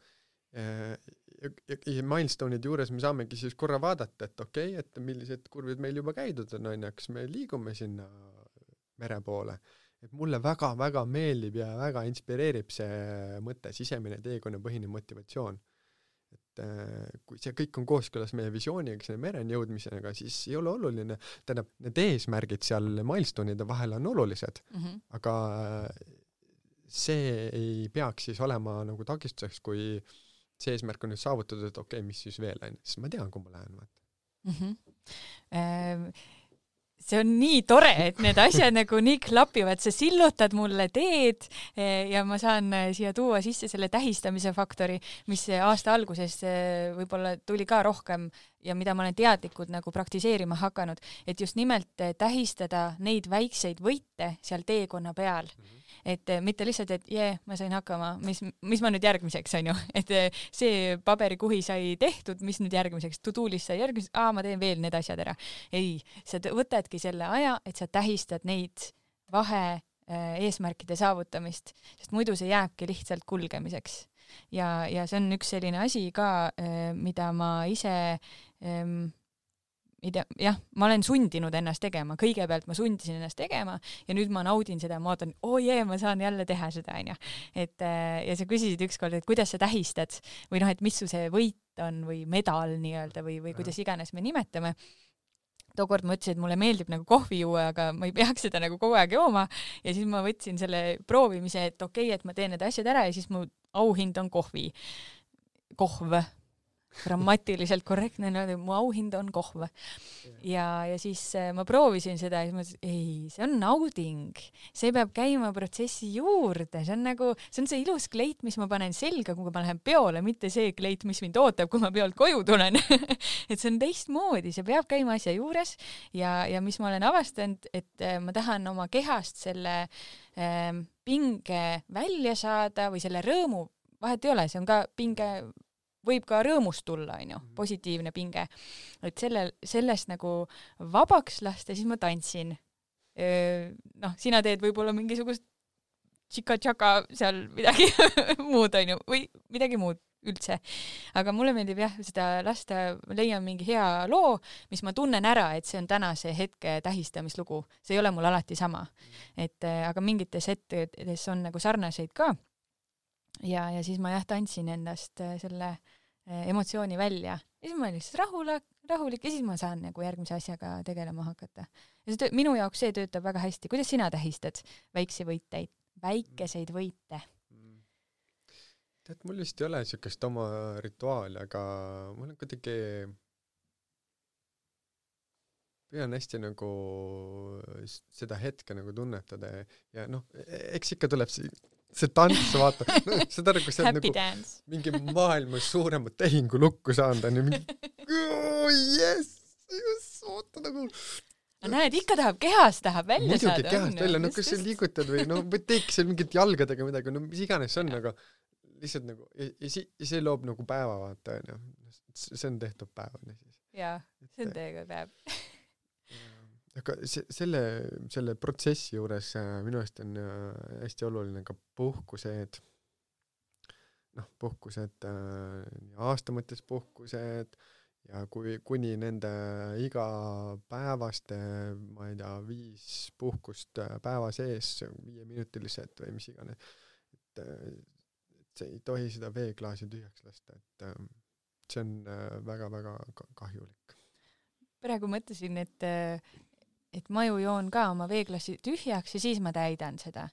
ja milestone'id juures me saamegi siis korra vaadata, et okei, et millised kurvid meil juba käidud on, kas me liigume sinna mere poole. Et mulle väga-väga meeldib ja väga inspireerib see mõte, sisemine teekonnapõhine motivatsioon. Et kui see kõik on kooskõlas meie visiooniga, selle mereni jõudmisega, siis ei ole oluline, tähendab, need eesmärgid seal milestone'ide vahel on olulised, aga see ei peaks siis olema nagu takistuseks, kui see eesmärk on nüüd saavutatud, et okei, mis siis veel on, siis ma tean, kui ma lähen. See on nii tore, et need asjad nagu nii klapivad, sa sillutad mulle teed ja ma saan siia tuua sisse selle tähistamise faktori, mis aasta alguses võib-olla tuli ka rohkem ja mida ma olen teadlikult nagu praktiseerima hakanud, et just nimelt tähistada neid väikseid võite seal teekonna peal. Et mitte lihtsalt, et ma sain hakkama, mis ma nüüd järgmiseks on ju, et see paberikuhi sai tehtud, mis nüüd järgmiseks, to-do-list sai järgmiseks, ma teen veel need asjad ära. Ei, sa võtadki selle aja, et sa tähistad neid vahe eesmärkide saavutamist, sest muidu see jääbki lihtsalt kulgemiseks. Ja see on üks selline asi ka, mida ma ise ma olen sundinud ennast tegema, kõigepealt ma sundisin ennast tegema ja nüüd ma naudin seda, ma ootan, ma saan jälle teha seda, on ju. Ja sa küsisid ükskord, et kuidas sa tähistad või noh, et mis su see võit on või medal nii-öelda või kuidas iganes me nimetame. Tookord ma ütlesin, et mulle meeldib nagu kohvi juua, aga ma ei peaks seda nagu kogu aeg jooma ja siis ma võtsin selle proovimise, et okei, et ma teen need asjad ära ja siis mu auhind on kohv. Grammatiliselt korrektne, mu auhind on kohv. Ja siis ma proovisin seda ja siis ma ütlesin, see on nauding. See peab käima protsessi juurde. See on see ilus kleit, mis ma panen selga, kui ma lähen peole, mitte see kleit, mis mind ootab, kui ma peolt koju tulen. Et see on teistmoodi, see peab käima asja juures ja mis ma olen avastanud, et ma tahan oma kehast selle pinge välja saada või selle rõõmu, vahet ei ole, see on ka pinge võib ka rõõmust tulla, positiivne pinge. Et sellest nagu vabaks lasta, siis ma tantsin. Sina teed võib-olla mingisugust tšika-tšaka seal midagi muud, või midagi muud üldse. Aga mulle meeldib seda lasta, leian mingi hea loo, mis ma tunnen ära, et see on tänase hetke tähistamislugu. See ei ole mul alati sama. Aga mingites hetkedes on nagu sarnaseid ka. Ja siis ma tantsin endast selle emotsiooni välja. Ja siis ma olin lihtsalt rahulik ja siis ma saan nagu järgmise asjaga tegelema hakata. Ja minu jaoks see töötab väga hästi. Kuidas sina tähistad väikeseid võite? Tead, mul vist ei ole niisugust oma rituaali, aga mul on kuidagi püüan hästi nagu seda hetke nagu tunnetada ja eks ikka tuleb see tants, vaata, seda nagu see on nagu mingi maailmas suuremat tehingu lukku saanud, on ju mingi oota nagu näed, ikka kehas tahab välja saada. Muidugi kehast välja, kas sa liigutad või teeks seal mingit jalgadega midagi, mis iganes on, aga lihtsalt nagu ja see loob nagu päeva, vaata, on ju. See on tehtud päev. Jaa, see on teega päev. Aga selle protsessi juures minu eest on hästi oluline ka puhkused, aasta mõttes puhkused ja kuni nende igapäevaste, ma ei tea, 5 puhkust päeva sees, 5-minutilised või mis iganes, et see ei tohi seda veeklaasi tühjaks lasta, et see on väga-väga kahjulik. Praegu mõtlesin, et ma ju joon ka oma veeklasi tühjaks ja siis ma täidan seda.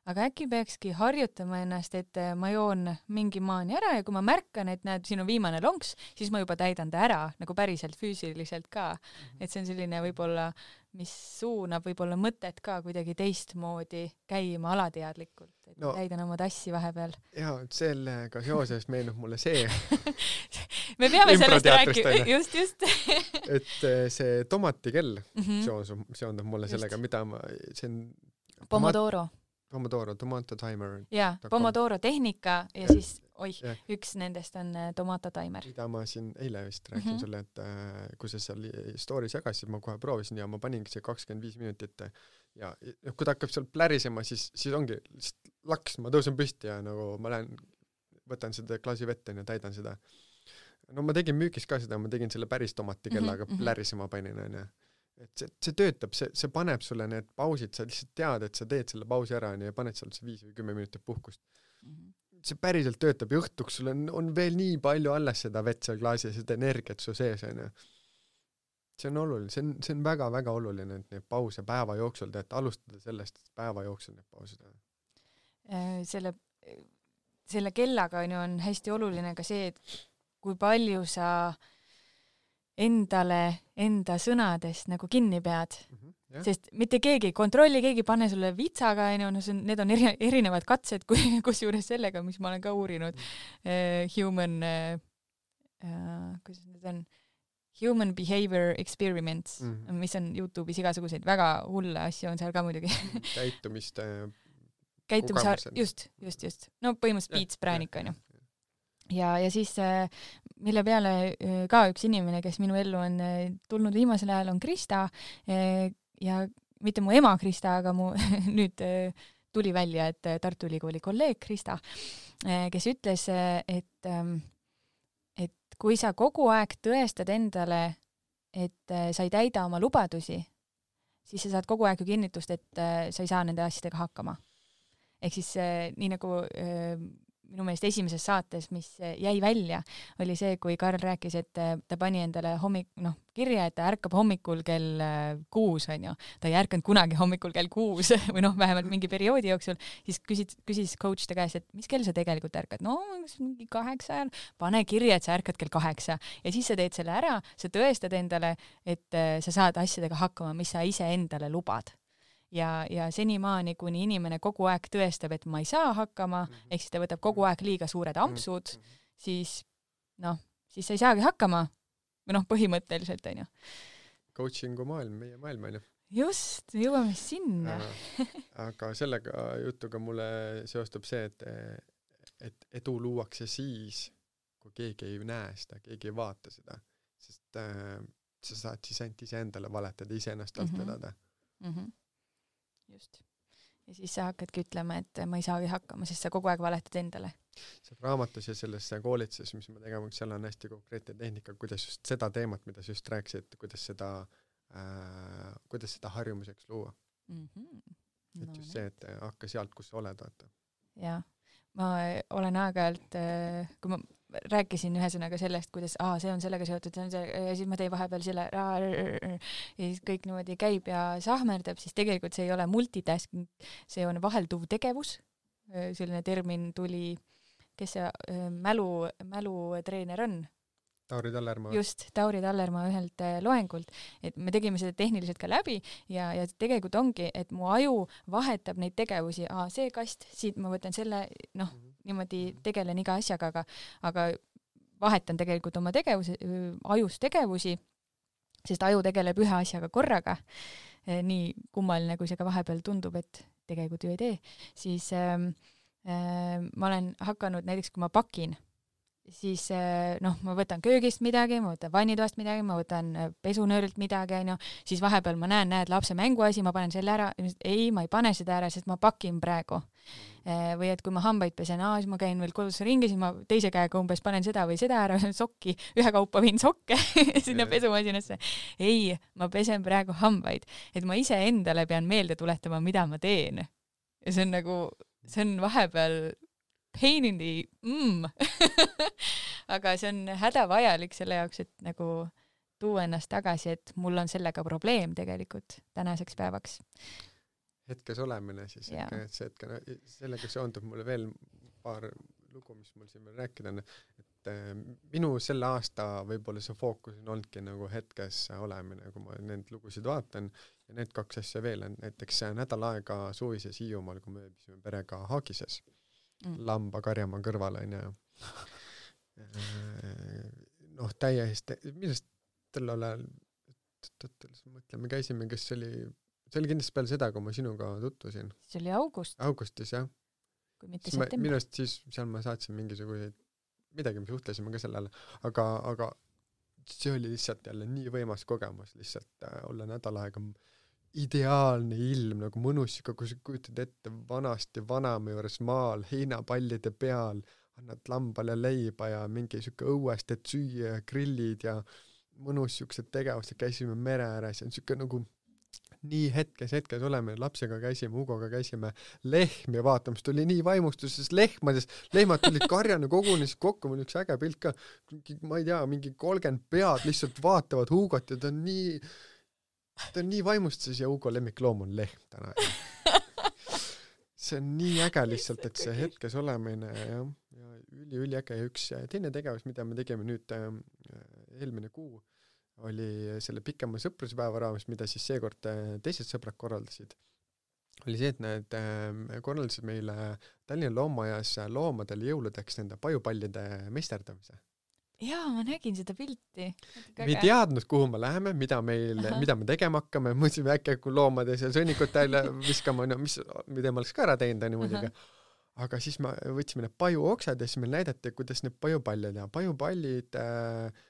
Aga äkki peakski harjutama ennast, et ma joon mingi maani ära ja kui ma märkan, et näed, siin on viimane lonks, siis ma juba täidan ta ära, nagu päriselt füüsiliselt ka. Et see on selline võib-olla, mis suunab võib-olla mõtet ka kuidagi teistmoodi käima alateadlikult, et täidan oma tassi vahepeal. Jaa, sellega seoses meenub mulle see. Me peame sellest rääkima, just. Et see tomatikell seondub mulle sellega, mida see on... Pomodoro. Pomodoro, Tomato Timer. jaa, Pomodoro tehnika ja siis, üks nendest on Tomato Timer. Mida ma siin eile vist rääkisin sulle, et kui sa seal stories jagasid, ma kohe proovisin ja ma paningi see 25 minutit ja kui ta hakkab seal plärisema, siis ongi lihtsalt laks, ma tõusen püsti ja nagu ma lähen, võtan seda klaasi vette ja täidan seda. No ma tegin müügis ka seda, ma tegin selle päris tomati kellaga plärisema panin, on. Et see töötab, see paneb sulle need pausid, sa lihtsalt tead, et sa teed selle pausi ära ja paned seal 5 või 10 minutit puhkust. See päriselt töötab ja õhtuks sul on veel nii palju alles seda vett seal klaasi ja seda energiat su sees, on. See on oluline, see on väga-väga oluline, et neid pause päeva jooksul teed, alustada sellest päeva jooksul neid pausid. Selle kellaga on hästi oluline ka see, et kui palju sa enda sõnadest nagu kinni pead. Sest mitte keegi kontrolli, keegi pane sulle vitsaga, need on erinevad katsed, kusjuures sellega, mis ma olen ka uurinud. Human behavior experiments, mis on YouTube'is igasuguseid väga hulle asju on seal ka muidugi. Just. No põhimõtteliselt piitspräänik on ju. Ja siis, mille peale ka üks inimene, kes minu ellu on tulnud viimasel ajal, on Krista ja mitte mu ema Krista, aga mu nüüd tuli välja, et Tartu Ülikooli kolleeg Krista, kes ütles, et kui sa kogu aeg tõestad endale, et sa ei täida oma lubadusi, siis sa saad kogu aeg ju kinnitust, et sa ei saa nende asjadega hakkama. Ehk siis nii nagu minu meelest esimeses saates, mis jäi välja, oli see, kui Karl rääkis, et ta pani endale kirja, et ta ärkab hommikul kell 6, on ju. Ta ei ärkanud kunagi hommikul kell 6 või vähemalt mingi perioodi jooksul, siis küsis coach ta käes, et mis kell sa tegelikult ärkad? No, mingi 8 ajal. Pane kirja, et sa ärkad kell 8 ja siis sa teed selle ära, sa tõestad endale, et sa saad asjadega hakkama, mis sa ise endale lubad. Ja senimaani, kuni inimene kogu aeg tõestab, et ma ei saa hakkama, ehk siis ta võtab kogu aeg liiga suured ampsud, siis sa ei saagi hakkama. Või põhimõtteliselt, on ju. Coachingu maailm, meie maailm, on ju. Just, jõuame sinna. Aga sellega jutuga mulle seostub see, et edu luuakse siis, kui keegi ei näe seda, keegi ei vaata seda. Sest sa saad siis ainult ise endale valetada, ise ennast alt vedada. Just. Ja siis sa hakkadki ütlema, et ma ei saagi hakkama, sest sa kogu aeg valetad endale. See raamatus ja selles koolituses, mis me tegema, seal on hästi konkreetne tehnika, kuidas just seda teemat, mida sa just rääkisid, kuidas seda harjumuseks luua. Et just see, et hakka sealt, kus sa oled, vaata. Jaa. Ma olen aeg-ajalt, kui ma rääkisin ühesõnaga sellest, kuidas see on sellega seotud, ja siis ma tein vahepeal selle ja siis kõik niimoodi käib ja sahmerdab, siis tegelikult see ei ole multitasking, see on vahelduv tegevus. Selline termin tuli, kes see mälutreener on? Tauri Tallermaa. Just, Tauri Tallermaa ühelt loengult, et me tegime seda tehniliselt ka läbi ja tegelikult ongi, et mu aju vahetab neid tegevusi, see kast, siit ma võtan selle, niimoodi tegelen iga asjaga, aga vahetan tegelikult oma ajus tegevusi, sest aju tegeleb ühe asjaga korraga, nii kummaline, kui see ka vahepeal tundub, et tegelikult ju ei tee, siis ma olen hakanud näiteks, kui ma pakin, siis ma võtan köögist midagi, ma võtan vannitoast midagi, ma võtan pesunöörilt midagi, siis vahepeal ma näed lapse mänguasi, ma panen selle ära, ei, ma ei pane seda ära, sest ma pakin praegu. Või et kui ma hambaid pesen, siis ma käin veel kodus ringi, siis ma teise käega umbes panen seda või seda ära, sokki, ühe kaupa viin sokke sinna pesumasinasse. Ei, ma pesen praegu hambaid, et ma ise endale pean meelde tuletama, mida ma teen. Ja see on vahepeal pain in the aga see on hädavajalik selle jaoks, et nagu tuua ennast tagasi, et mul on sellega probleem tegelikult tänaseks päevaks. Hetkes olemine siis, sellega seondub mulle veel paar lugu, mis mul siin veel rääkida on, et minu selle aasta võib-olla see fookus on olnudki nagu hetkes olemine, kui ma need lugusid vaatan ja need 2 asja veel on, näiteks nädal aega suvises Hiiumaal, kui me ööbisime perega Haagises. Lamba karjamaa kõrvale on ja täiesti, millest tällal ajal mõtleme, käisime, kes oli see oli kindlasti peale seda, kui ma sinuga tutvusin. See oli augustis, jah. Kui mitte september. Minu arust siis seal ma saatsin mingisuguseid midagi, me suhtlesime ka sellele, aga see oli lihtsalt jälle nii võimas kogemus lihtsalt olla nädal aega ideaalne ilm, nagu mõnus, kui sa kujutad ette vanasti vanaema juures maal, heinapallide peal, annad lambale leiba ja mingi siuke õuest, et süüa ja grillid ja mõnus siuksed tegevused, käisime mere ääres ja siuke nagu nii hetkes oleme, lapsega käisime, Hugoga käisime lehmi vaatamas, tuli nii vaimustuses lehmad tulid karjana kogunes kokku, mul üks äge pilt ka, ma ei tea, mingi 30 pead lihtsalt vaatavad Hugot ja ta on nii vaimustuses ja Hugo lemmikloom on lehm täna. See on nii äge lihtsalt, et see hetkes olemine ja üli äge ja üks teine tegevus, mida me tegime nüüd eelmine kuu, oli selle pikema sõpruspäeva raames, mida siis seekord teised sõbrad korraldasid, oli see, et need korraldasid meile Tallinna Loomaajas loomadele jõuludeks nende pajupallide meisterdamise. Jaa, ma nägin seda pilti. Me ei teadnud, kuhu me läheme, mida me tegema hakkame, mõtlesime äkki, kui loomade seal sõnnikut täile viskama, no, mida ma oleks ka ära teinud, on muidugi. Aga siis me võtsime need pajuoksad ja siis meil näidati, kuidas need pajupallid ja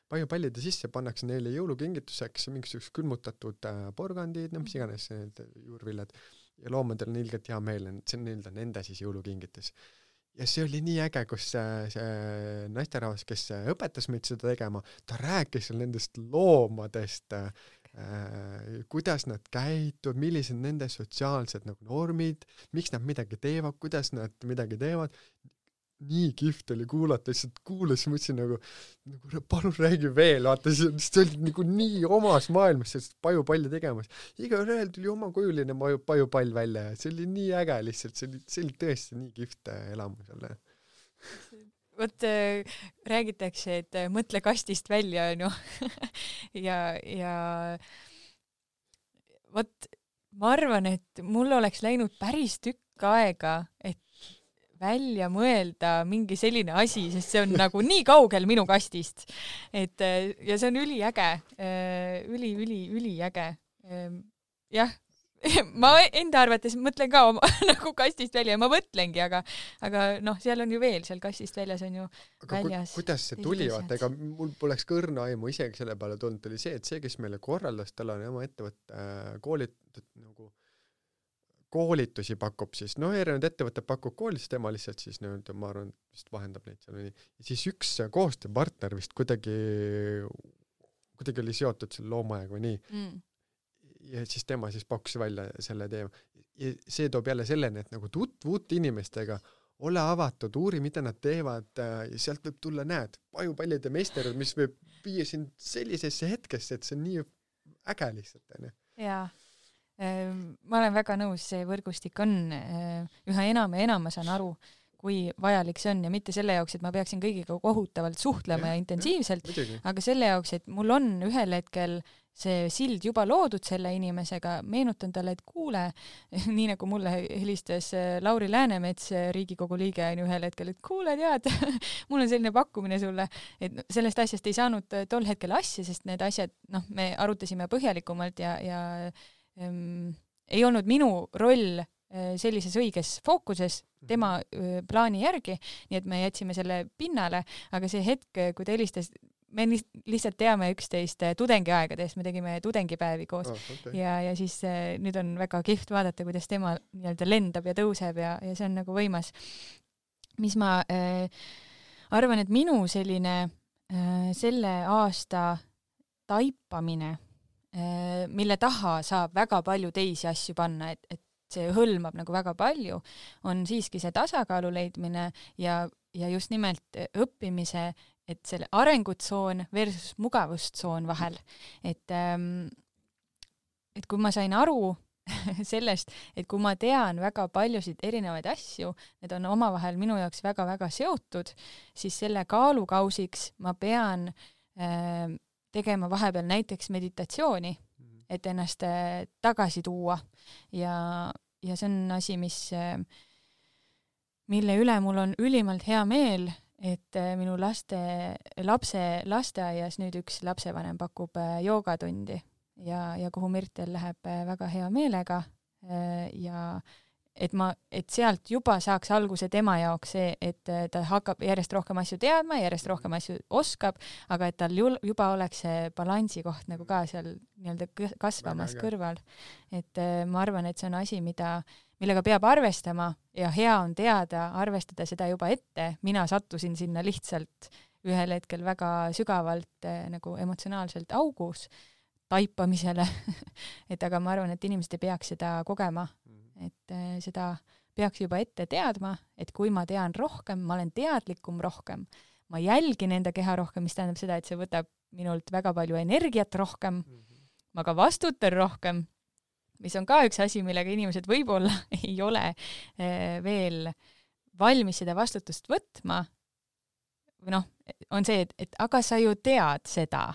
pajupallide sisse pannakse neile jõulukingituseks mingisugused külmutatud porgandid, no mis iganes need juurviljad ja loomadel on ilgelt hea meel, see on nende siis jõulukingitus. Ja see oli nii äge, kus see naisterahvas, kes õpetas meid seda tegema, ta rääkis nendest loomadest, kuidas nad käituvad, millised nende sotsiaalsed nagu normid, miks nad midagi teevad, kuidas nad midagi teevad. Nii kihvt oli kuulata, lihtsalt kuulas, mõtlesin nagu palun räägi veel, vaata, see oli nagu nii omas maailmas sellest pajupalli tegemas. Iga ühel tuli oma kujuline pajupall välja ja see oli nii äge lihtsalt, see oli tõesti nii kihvt elamus jälle. Vot räägitakse, et mõtle kastist välja, no. ja vot ma arvan, et mul oleks läinud päris tükk aega, et välja mõelda mingi selline asi, sest see on nagu nii kaugel minu kastist. Et, ja see on üliäge, üliäge. Jah. Ma enda arvates mõtlen ka oma nagu kastist välja ja ma mõtlengi, aga noh, seal on ju veel, seal kastist väljas on ju aga väljas. Kuidas see tuli, vaata, ega mul poleks kõrna aimu isegi selle peale tulnud, oli see, et see, kes meile korraldas, tal on oma ettevõtte koolitusi pakub siis, erinevad ettevõtted pakub koolitusi, tema lihtsalt siis ma arvan, vist vahendab neid seal nii. Ja siis üks koostööpartner vist kuidagi oli seotud selle loomaajaga või nii. Ja siis tema siis pakkus välja selle teema. Ja see toob jälle selleni, et nagu tutvuut inimestega, ole avatud, uuri, mida nad teevad ja sealt võib tulla, näed, pajupallide meisterud, mis võib viia sind sellisesse hetkesse, et see on nii äge lihtsalt. Jaa. Ma olen väga nõus, see võrgustik on üha enam ja enam, ma saan aru, kui vajalik see on ja mitte selle jaoks, et ma peaksin kõigiga kohutavalt suhtlema ja intensiivselt, aga selle jaoks, et mul on ühel hetkel see sild juba loodud selle inimesega, meenutan talle, et kuule, nii nagu mulle helistas Lauri Läänemets, Riigikogu liige on ühel hetkel, et kuule, tead, mul on selline pakkumine sulle, et sellest asjast ei saanud tol hetkel asja, sest need asjad, me arutasime põhjalikumalt ja ei olnud minu roll sellises õiges fookuses tema plaani järgi, nii et me jätsime selle pinnale, aga see hetk, kui ta helistas, me lihtsalt teame üksteist tudengiaegadest, me tegime tudengipäevi koos ja siis nüüd on väga kihvt vaadata, kuidas tema nii-öelda lendab ja tõuseb ja see on nagu võimas. Mis ma arvan, et minu selline selle aasta taipamine, mille taha saab väga palju teisi asju panna, et see hõlmab nagu väga palju, on siiski see tasakaalu leidmine ja just nimelt õppimise, et selle arengutsoon versus mugavustsoon vahel. Et kui ma sain aru sellest, et kui ma tean väga paljusid erinevaid asju, need on omavahel minu jaoks väga-väga seotud, siis selle kaalukausiks ma pean tegema vahepeal näiteks meditatsiooni, et ennast tagasi tuua ja see on asi, mille üle mul on ülimalt hea meel, et minu lapse lasteaias nüüd üks lapsevanem pakub joogatundi ja kuhu Mirtel läheb väga hea meelega ja et sealt juba saaks alguse tema jaoks see, et ta hakkab järjest rohkem asju teadma, järjest rohkem asju oskab, aga et tal juba oleks see balansi koht nagu ka seal nii-öelda kasvamas kõrval. Et ma arvan, et see on asi, millega peab arvestama ja hea on teada, arvestada seda juba ette. Mina sattusin sinna lihtsalt ühel hetkel väga sügavalt nagu emotsionaalselt augus taipamisele. Et aga ma arvan, et inimesed ei peaks seda kogema. Et seda peaks juba ette teadma, et kui ma tean rohkem, ma olen teadlikum rohkem, ma jälgin enda keha rohkem, mis tähendab seda, et see võtab minult väga palju energiat rohkem, ma ka vastutan rohkem, mis on ka üks asi, millega inimesed võib-olla ei ole veel valmis seda vastutust võtma, või on see, et aga sa ju tead seda,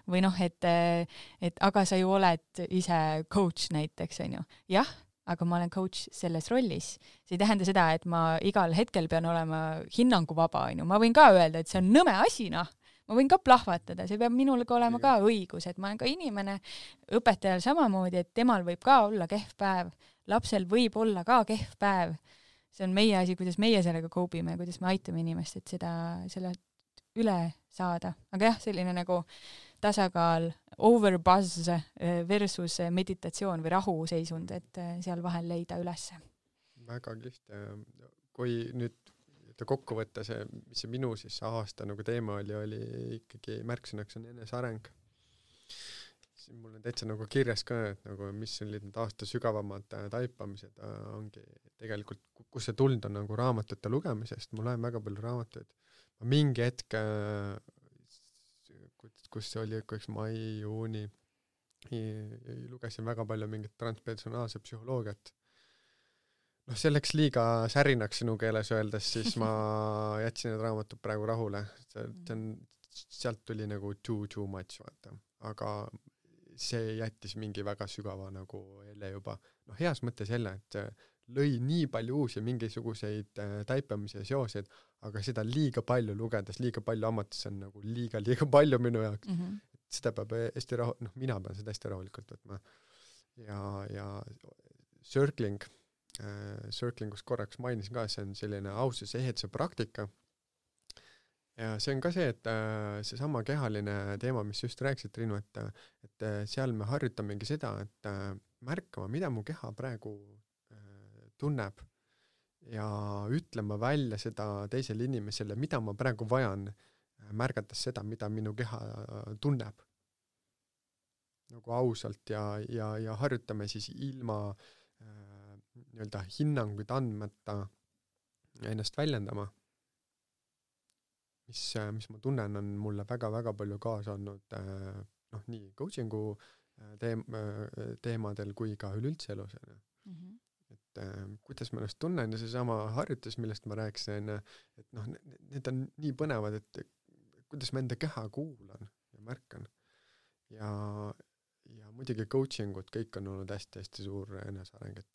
või et aga sa ju oled ise coach näiteks, on ju. Jah, aga ma olen coach selles rollis. See ei tähenda seda, et ma igal hetkel pean olema hinnanguvaba, on ju. Ma võin ka öelda, et see on nõme asi, Ma võin ka plahvatada, see peab minul ka olema ka õigus, et ma olen ka inimene, õpetajal samamoodi, et temal võib ka olla kehv päev, lapsel võib olla ka kehv päev. See on meie asi, kuidas meie sellega koobime, kuidas me aitame inimest, et selle üle saada. Aga jah, selline nagu tasakaal overbuzz versus meditatsioon või rahuseisund, et seal vahel leida ülesse. Väga kihvt. Kui nüüd kokku võtta see, mis see minu siis aasta nagu teema oli ikkagi märksõnaks on eneseareng. Mul on täitsa nagu kirjas ka, et nagu mis olid need aasta sügavamad taipamised ongi tegelikult, kus see tulnud on nagu raamatute lugemisest. Ma loen väga palju raamatuid. Ma mingi hetk kus see oli üks mai, juuni, lugesin väga palju mingit transpersonaalse psühholoogiat. See läks liiga särinaks sinu keeles öeldes, siis ma jätsin need raamatud praegu rahule. Sealt tuli nagu too much, vaata. Aga see jättis mingi väga sügava nagu jälle juba. Heas mõttes jälle, et lõi nii palju uusi mingisuguseid taipamise seoseid, aga seda liiga palju lugedes, liiga palju amatisse on nagu liiga palju minu jaoks. Seda peab hästi mina pean seda hästi rahulikult võtma. Ja circlingus korraks mainisin ka, see on selline aususe eheduse praktika. Ja see on ka see, et see sama kehaline teema, mis just rääkisid, Triinu, et seal me harjutamegi seda, et märkama, mida mu keha praegu tunneb ja ütlema välja seda teisele inimesele, mida ma praegu vajan, märgates seda, mida minu keha tunneb. Nagu ausalt ja harjutame siis ilma nii-öelda hinnanguid andmata ennast väljendama. Mis ma tunnen, on mulle väga-väga palju kaasa olnud nii coachingu teemadel kui ka üleüldse elus. Et kuidas ma ennast tunnen ja see sama harjutus, millest ma rääkisin, et need on nii põnevad, et kuidas ma enda keha kuulan ja märkan. Ja muidugi coachingud, kõik on olnud hästi-hästi suur eneseareng, et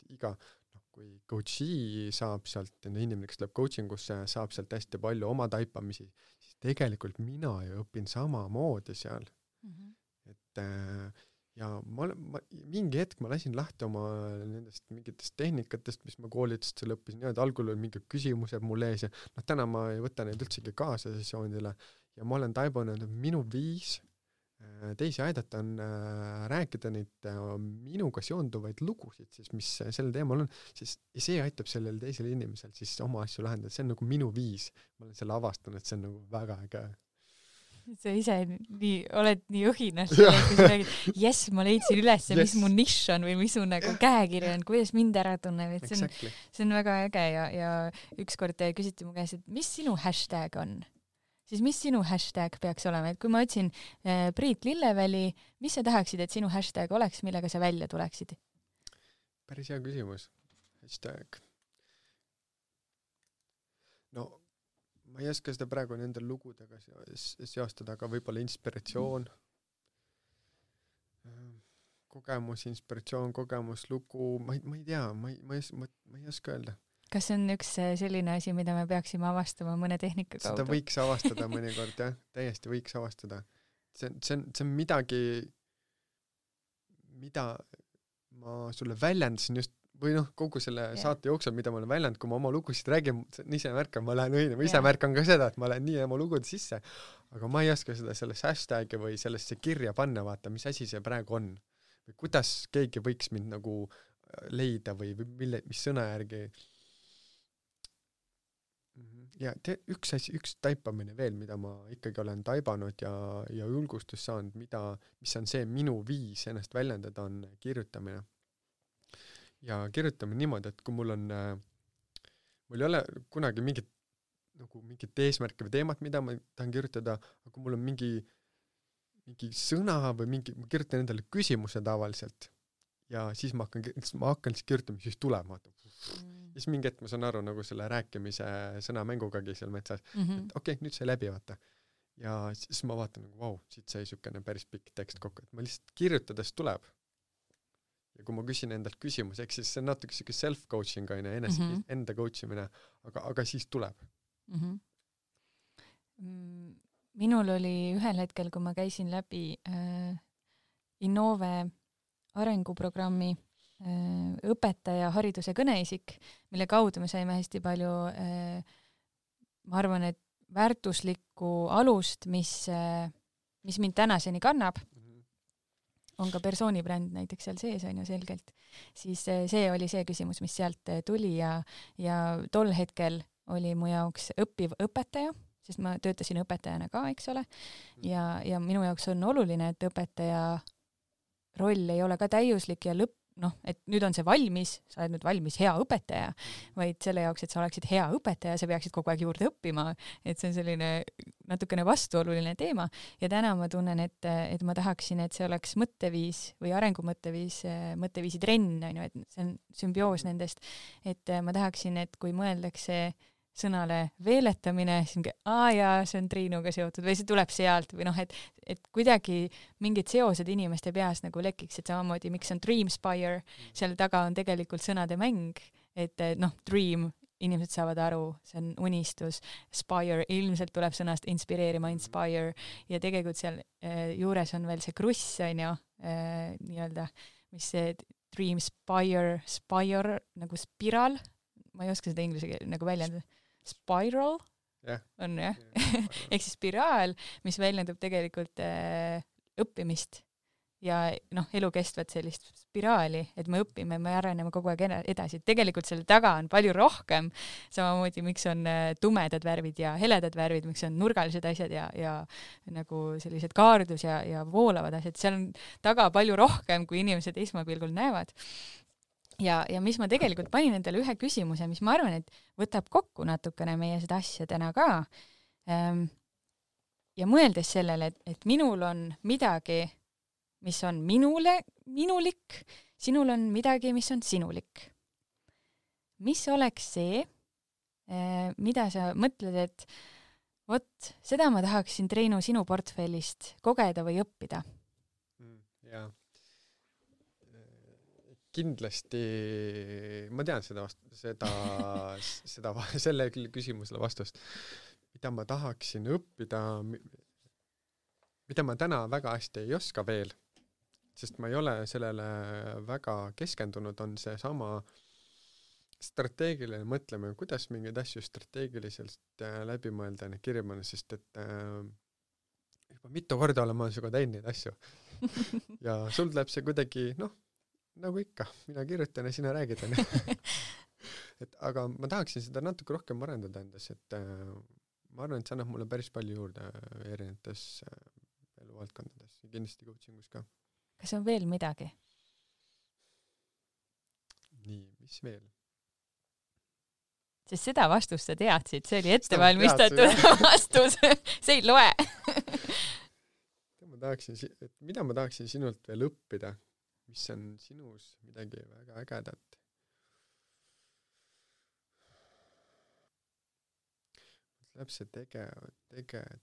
kui coachi saab sealt, inimene, kes tuleb coachingusse, saab sealt hästi palju oma taipamisi, siis tegelikult mina ju õpin samamoodi seal. Et ja mingi hetk ma lasin lahti oma nendest mingitest tehnikatest, mis ma koolitust seal õppisin, ja algul oli mingi küsimused mul ees ja täna ma ei võta neid üldsegi kaasa sessioonidele ja ma olen taibunud, et minu viis teisi aidata on rääkida neid minuga seonduvaid lugusid, siis mis sellel teemal on, siis see aitab sellel teisel inimesel siis oma asju lahendada, see on nagu minu viis. Ma olen selle avastanud, et see on nagu väga äge. Sa ise oled nii õhinas, kui sa räägid, yes, ma leidsin üles, mis mu nišš on või mis mu nagu käekiri on, kuidas mind ära tunneb, et see on väga äge ja ükskord küsiti mu käest, et mis sinu hashtag on? Siis mis sinu hashtag peaks olema? Et kui ma otsin Priit Lilleväli, mis sa tahaksid, et sinu hashtag oleks, millega sa välja tuleksid? Päris hea küsimus. Hashtag. No, ma ei oska seda praegu nende lugudega seostada, aga võib-olla inspiratsioon, kogemus, inspiratsioon, kogemus, lugu, ma ei tea, ma ei oska öelda. Kas see on üks selline asi, mida me peaksime avastama mõne tehnika kaudu? Seda võiks avastada mõnikord, jah. Täiesti võiks avastada. See on midagi, mida ma sulle väljendasin just või kogu selle saate jooksul, mida ma olen väljendanud, kui ma oma lugusid räägin, ise märkan, ma lähen õine, ma ise märkan ka seda, et ma lähen nii oma lugude sisse, aga ma ei oska seda sellesse hashtagi või sellesse kirja panna, vaata, mis asi see praegu on. Või kuidas keegi võiks mind nagu leida või mis sõna järgi. Ja üks taipamine veel, mida ma ikkagi olen taibanud ja julgustus saanud, mis on see minu viis ennast väljendada, on kirjutamine. Ja kirjutame niimoodi, et kui mul ei ole kunagi mingit eesmärki või teemat, mida ma tahan kirjutada, aga kui mul on mingi sõna või ma kirjutan endale küsimuse tavaliselt ja siis ma hakkan siis kirjutama, siis tuleb, siis mingi hetk ma saan aru nagu selle rääkimise sõnamängugagi seal metsas, et okei, nüüd sai läbi, vaata. Ja siis ma vaatan nagu, vau, siit sai sükene päris pikk tekst kokku, et ma lihtsalt kirjutades tuleb. Ja kui ma küsin endalt küsimus, eks siis see on natuke siuke self-coaching on enda coachimine, aga siis tuleb. Minul oli ühel hetkel, kui ma käisin läbi Innove arenguprogrammi õpetaja hariduse kõneisik, mille kaudu me saime hästi palju, ma arvan, et väärtuslikku alust, mis mind tänaseni kannab, on ka persoonibränd näiteks seal sees, on ju selgelt, siis see oli see küsimus, mis sealt tuli ja tol hetkel oli mu jaoks õppiv õpetaja, sest ma töötasin õpetajana ka, eks ole, ja minu jaoks on oluline, et õpetaja roll ei ole ka täiuslik ja et nüüd on see valmis, sa oled nüüd valmis hea õpetaja, vaid selle jaoks, et sa oleksid hea õpetaja, sa peaksid kogu aeg juurde õppima, et see on selline natukene vastuoluline teema ja täna ma tunnen, et ma tahaksin, et see oleks mõtteviis või mõtteviisi trenn, on ju, et see on sümbioos nendest, et ma tahaksin, et kui mõeldakse sõnale veeletamine, siis see on Triinuga seotud või see tuleb sealt või et kuidagi mingid seosed inimeste peas nagu lekiks, et samamoodi, miks on Dreamspire, seal taga on tegelikult sõnade mäng, et dream, inimesed saavad aru, see on unistus, spire, ilmselt tuleb sõnast inspireerima, inspire, ja tegelikult seal juures on veel see kruss, on ju, nii-öelda, mis see Dreamspire, spire, nagu spiraal, ma ei oska seda inglise keele nagu väljendada, spiral on jah, ehk siis spiraal, mis väljendub tegelikult õppimist ja elukestvat sellist spiraali, et me õpime, me areneme kogu aeg edasi. Tegelikult selle taga on palju rohkem, samamoodi miks on tumedad värvid ja heledad värvid, miks on nurgalised asjad ja nagu sellised kaardus ja voolavad asjad, seal on taga palju rohkem, kui inimesed esmapilgul näevad. Ja mis ma tegelikult panin endale ühe küsimuse, mis ma arvan, et võtab kokku natukene meie seda asja täna ka. Ja mõeldes sellele, et minul on midagi, mis on minulik, sinul on midagi, mis on sinulik. Mis oleks see, mida sa mõtled, et vot, seda ma tahaksin, Triinu, sinu portfellist kogeda või õppida? Jaa. Kindlasti ma tean selle küsimusele vastust, mida ma tahaksin õppida, mida ma täna väga hästi ei oska veel, sest ma ei ole sellele väga keskendunud, on see sama strateegiline mõtlemine, kuidas mingeid asju strateegiliselt läbi mõelda ja kirja mõelda, sest et juba mitu korda olen ma sinuga teinud neid asju ja sul läheb see kuidagi, nagu ikka, mina kirjutan ja sina räägid. Aga ma tahaksin seda natuke rohkem arendada endas, et ma arvan, et see annab mulle päris palju juurde erinevates eluvaldkondades ja kindlasti coachingus ka. Kas on veel midagi? Nii, mis veel? Sest seda vastust sa teadsid, see oli ettevalmistatud vastus, see ei loe. Mida ma tahaksin sinult veel õppida? Mis on sinus midagi väga ägedat? Läheb see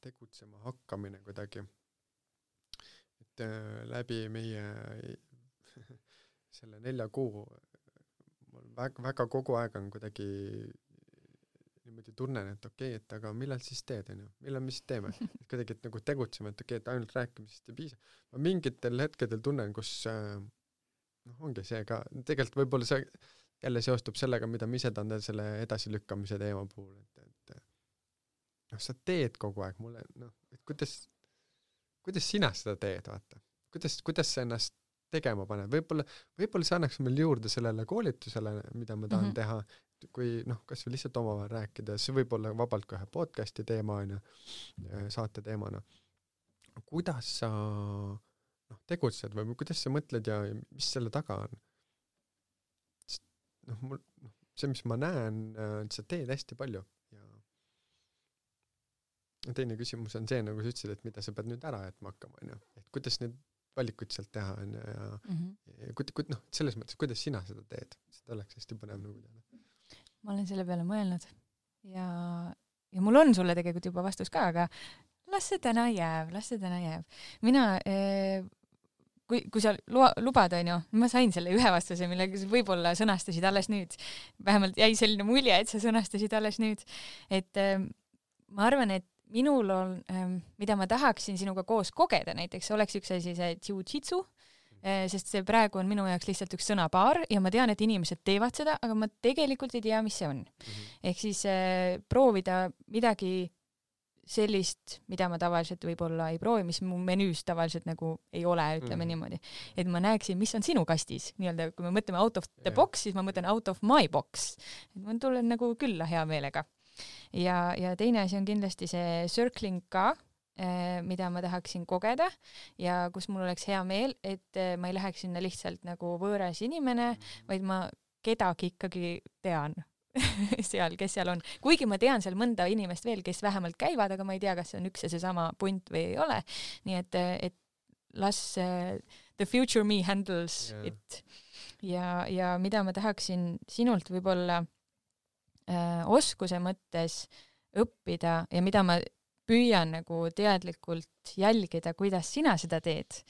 tegutsema hakkamine kuidagi. Et läbi meie selle 4 kuu väga kogu aeg on kuidagi niimoodi tunnen, et okei, et aga millal siis teed, millal me siis teeme? Et kuidagi, et nagu tegutseme, et okei, et ainult rääkimisest ei piisa. Ma mingitel hetkedel tunnen, kus ongi see ka, tegelikult võib-olla see jälle seostub sellega, mida ma ise tahan selle edasilükkamise teema puhul, et sa teed kogu aeg mulle, et kuidas sina seda teed, vaata. Kuidas sa ennast tegema paned? Võib-olla see annaks meil juurde sellele koolitusele, mida ma tahan teha, kui kas või lihtsalt omavahel rääkida, see võib olla vabalt ka ühe podcasti teema, saate teemana. Kuidas sa tegutsed või kuidas sa mõtled ja mis selle taga on? See, mis ma näen, sa teed hästi palju ja teine küsimus on see, nagu sa ütlesid, et mida sa pead nüüd ära jätma hakkama, et kuidas need valikuid sealt teha ja selles mõttes, kuidas sina seda teed, seda oleks hästi põnev nagu teada. Ma olen selle peale mõelnud ja mul on sulle tegelikult juba vastus ka, aga las see täna jääb. Mina, kui sa lubad, ma sain selle ühe vastuse, millega sa võib-olla sõnastasid alles nüüd. Vähemalt jäi selline mulje, et sa sõnastasid alles nüüd. Et ma arvan, et minul on, mida ma tahaksin sinuga koos kogeda, näiteks oleks üks asi see jiu-jitsu, sest see praegu on minu jaoks lihtsalt üks sõnapaar ja ma tean, et inimesed teevad seda, aga ma tegelikult ei tea, mis see on. Ehk siis proovida midagi sellist, mida ma tavaliselt võib-olla ei proovi, mis mu menüüs tavaliselt nagu ei ole, ütleme niimoodi. Et ma näeksin, mis on sinu kastis. Nii-öelda, kui me mõtleme out of the box, siis ma mõtlen out of my box. Et ma tulen nagu külla hea meelega. Ja teine asi on kindlasti see circling ka, mida ma tahaksin kogeda ja kus mul oleks hea meel, et ma ei läheks sinna lihtsalt nagu võõras inimene, vaid ma kedagi ikkagi tean seal, kes seal on. Kuigi ma tean seal mõnda inimest veel, kes vähemalt käivad, aga ma ei tea, kas see on üks ja seesama punt või ei ole. Nii et las the future me handles it. Ja mida ma tahaksin sinult võib-olla oskuse mõttes õppida ja mida ma püüan nagu teadlikult jälgida, kuidas sina seda teed,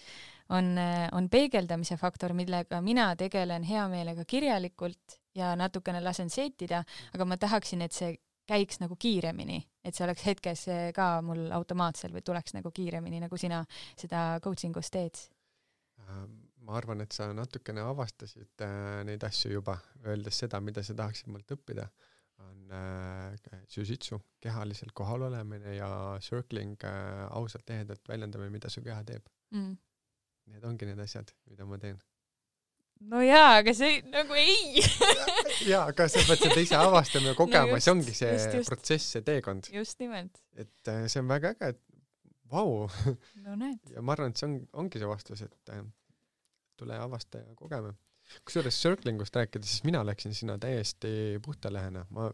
on peegeldamise faktor, millega mina tegelen hea meelega kirjalikult ja natukene lasen seetida, aga ma tahaksin, et see käiks nagu kiiremini, et see oleks hetkes ka mul automaatselt või tuleks nagu kiiremini, nagu sina seda coachingus teed. Ma arvan, et sa natukene avastasid neid asju juba, öeldes seda, mida sa tahaksid mult õppida. On jiu-jitsu, kehaliselt kohal olemine ja circling, ausalt ehedalt väljendame, mida su keha teeb. Need ongi need asjad, mida ma teen. No jaa, aga see nagu ei. Jaa, aga sa pead seda ise avastama ja kogema, see ongi see protsess, see teekond. Just nimelt. Et see on väga äge, et vau. No näed. Ja ma arvan, et see ongi see vastus, et tule avasta ja kogeme. Kusjuures circlingust rääkida, siis mina läksin sinna täiesti puhtalehena. Ma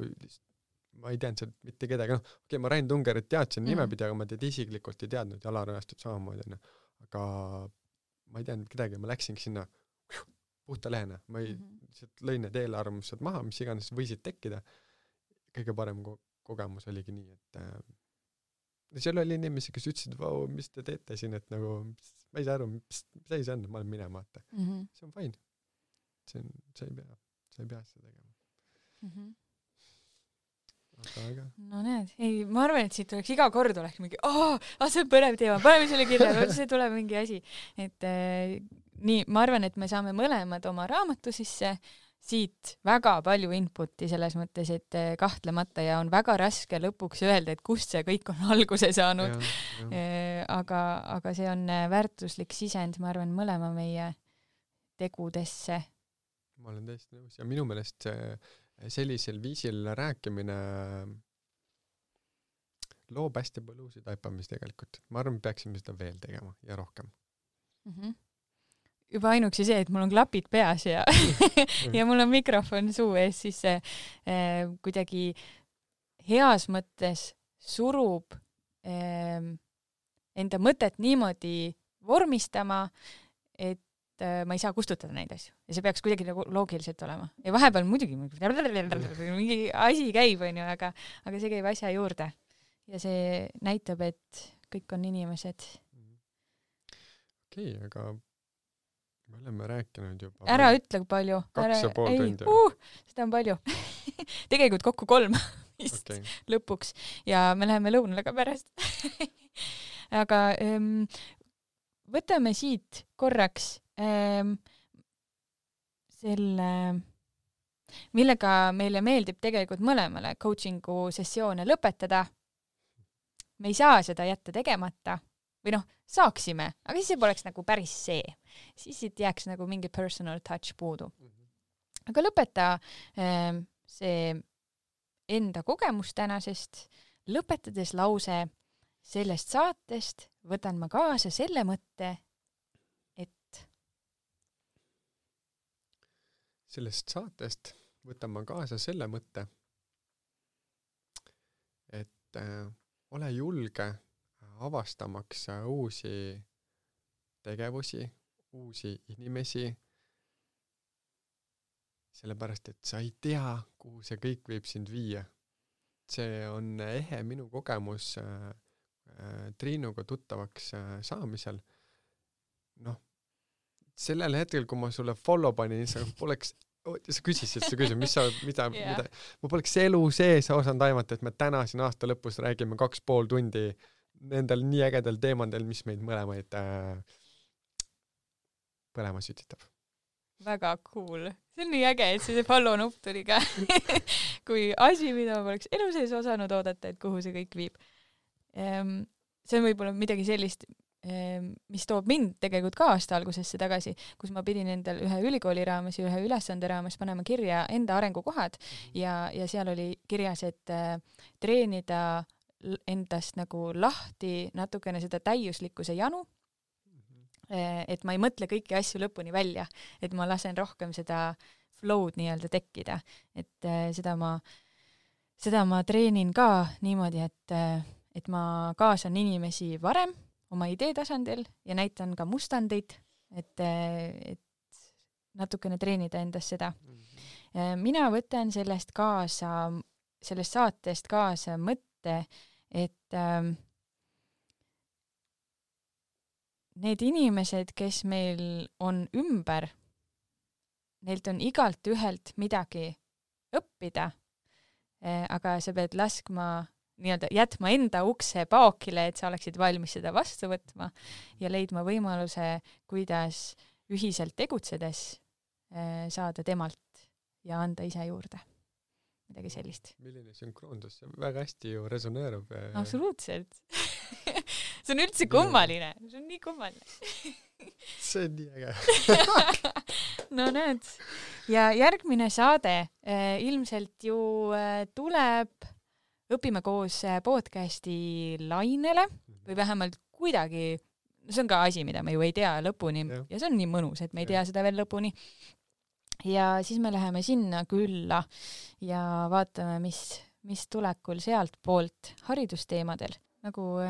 ei teadnud seal mitte kedagi. Okei, ma Rain Tungerit teadsin nimepidi, aga ma teid isiklikult ei teadnud ja Alarajastut samamoodi. Aga ma ei teadnud kedagi, ma läksingi sinna puhtalehena. Ma lõin need eelarvamused maha, mis iganes võisid tekkida. Kõige parem kogemus oligi nii, et seal oli inimesi, kes ütlesid, vau, mis te teete siin, et nagu, ma ei saa aru, mis see on, ma olen minema, vaata. See on fine. Sa ei pea seda tegema. Aga. No näed, ei, ma arvan, et siit oleks iga kord oleks mingi, see on põnev teema, paneme selle kirja, see tuleb mingi asi. Et nii, ma arvan, et me saame mõlemad oma raamatu sisse, siit väga palju inputi selles mõttes, et kahtlemata ja on väga raske lõpuks öelda, et kust see kõik on alguse saanud. Aga see on väärtuslik sisend, ma arvan, mõlema meie tegudesse. Ma olen täiesti nõus ja minu meelest sellisel viisil rääkimine loob hästi palju uusi taipamisi tegelikult. Ma arvan, peaksime seda veel tegema ja rohkem. Juba ainuksi see, et mul on klapid peas ja mul on mikrofon suu ees, siis kuidagi heas mõttes surub enda mõtet niimoodi vormistama, et ma ei saa kustutada neid asju. Ja see peaks kuidagi nagu loogiliselt olema. Ja vahepeal muidugi mingi asi käib, aga see käib asja juurde. Ja see näitab, et kõik on inimesed. Okei, aga me oleme rääkinud juba. Ära ütle palju. 2,5 tundi. Seda on palju. Tegelikult kokku 3 vist lõpuks. Ja me läheme lõunale ka pärast. Aga võtame siit korraks millega meile meeldib tegelikult mõlemale coachingu sessioone lõpetada. Me ei saa seda jätta tegemata või saaksime, aga siis see poleks nagu päris see. Siis siit jääks nagu mingi personal touch puudu. Aga lõpeta see enda kogemus tänasest, lõpetades lause sellest saatest võtan ma kaasa selle mõtte, et sellest saatest võtan ma kaasa selle mõtte, et ole julge avastamaks uusi tegevusi, uusi inimesi, sellepärast, et sa ei tea, kuhu see kõik võib sind viia. See on ehe minu kogemus Triinuga tuttavaks saamisel. Sellel hetkel, kui ma sulle follow panin, sa küsisid seda küsimust, mida ma poleks elu sees osanud aimata, et me täna siin aasta lõpus räägime 2,5 tundi nendel nii ägedel teemadel, mis meid mõlemaid põlema sütitab. Väga cool. See on nii äge, et see follow nupp tuli ka. Kui asi, mida ma poleks elu sees osanud oodata, et kuhu see kõik viib. See on võib-olla midagi sellist, mis toob mind tegelikult ka aasta algusesse tagasi, kus ma pidin endal ühe ülikooli raames ja ühe ülesande raames panema kirja enda arengukohad ja seal oli kirjas, et treenida endast nagu lahti natukene seda täiuslikkuse janu, et ma ei mõtle kõiki asju lõpuni välja, et ma lasen rohkem seda flow'd nii-öelda tekkida, et seda ma treenin ka niimoodi, et ma kaasan inimesi varem oma idee tasandil ja näitan ka mustandeid, et natukene treenida endas seda. Mina võtan sellest saatest kaasa mõtte, et need inimesed, kes meil on ümber, neilt on igalt ühelt midagi õppida, aga sa pead jätma enda ukse paokile, et sa oleksid valmis seda vastu võtma ja leidma võimaluse, kuidas ühiselt tegutsedes saada temalt ja anda ise juurde. Midagi sellist. Milline sünkroondus, see väga hästi ju resoneerub. Absoluutselt. See on üldse kummaline. See on nii kummaline. See on nii äge. No näed. Ja järgmine saade ilmselt ju tuleb Õpime koos podcasti lainele või vähemalt kuidagi, see on ka asi, mida me ju ei tea lõpuni ja see on nii mõnus, et me ei tea seda veel lõpuni. Ja siis me läheme sinna külla ja vaatame, mis tulekul sealt poolt haridusteemadel. Nagu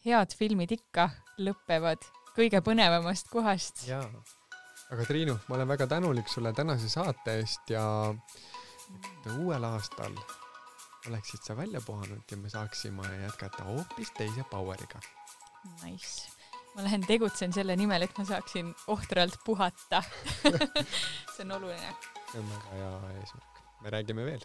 head filmid ikka lõppevad kõige põnevamast kohast. Jaa, aga Triinu, ma olen väga tänulik sulle tänase saate eest ja uuel aastal oleksid sa välja puhanud ja me saaksime jätkata hoopis teise poweriga. Nice. Ma lähen tegutsen selle nimel, et ma saaksin ohtralt puhata. See on oluline. See on väga hea eesmärk. Me räägime veel.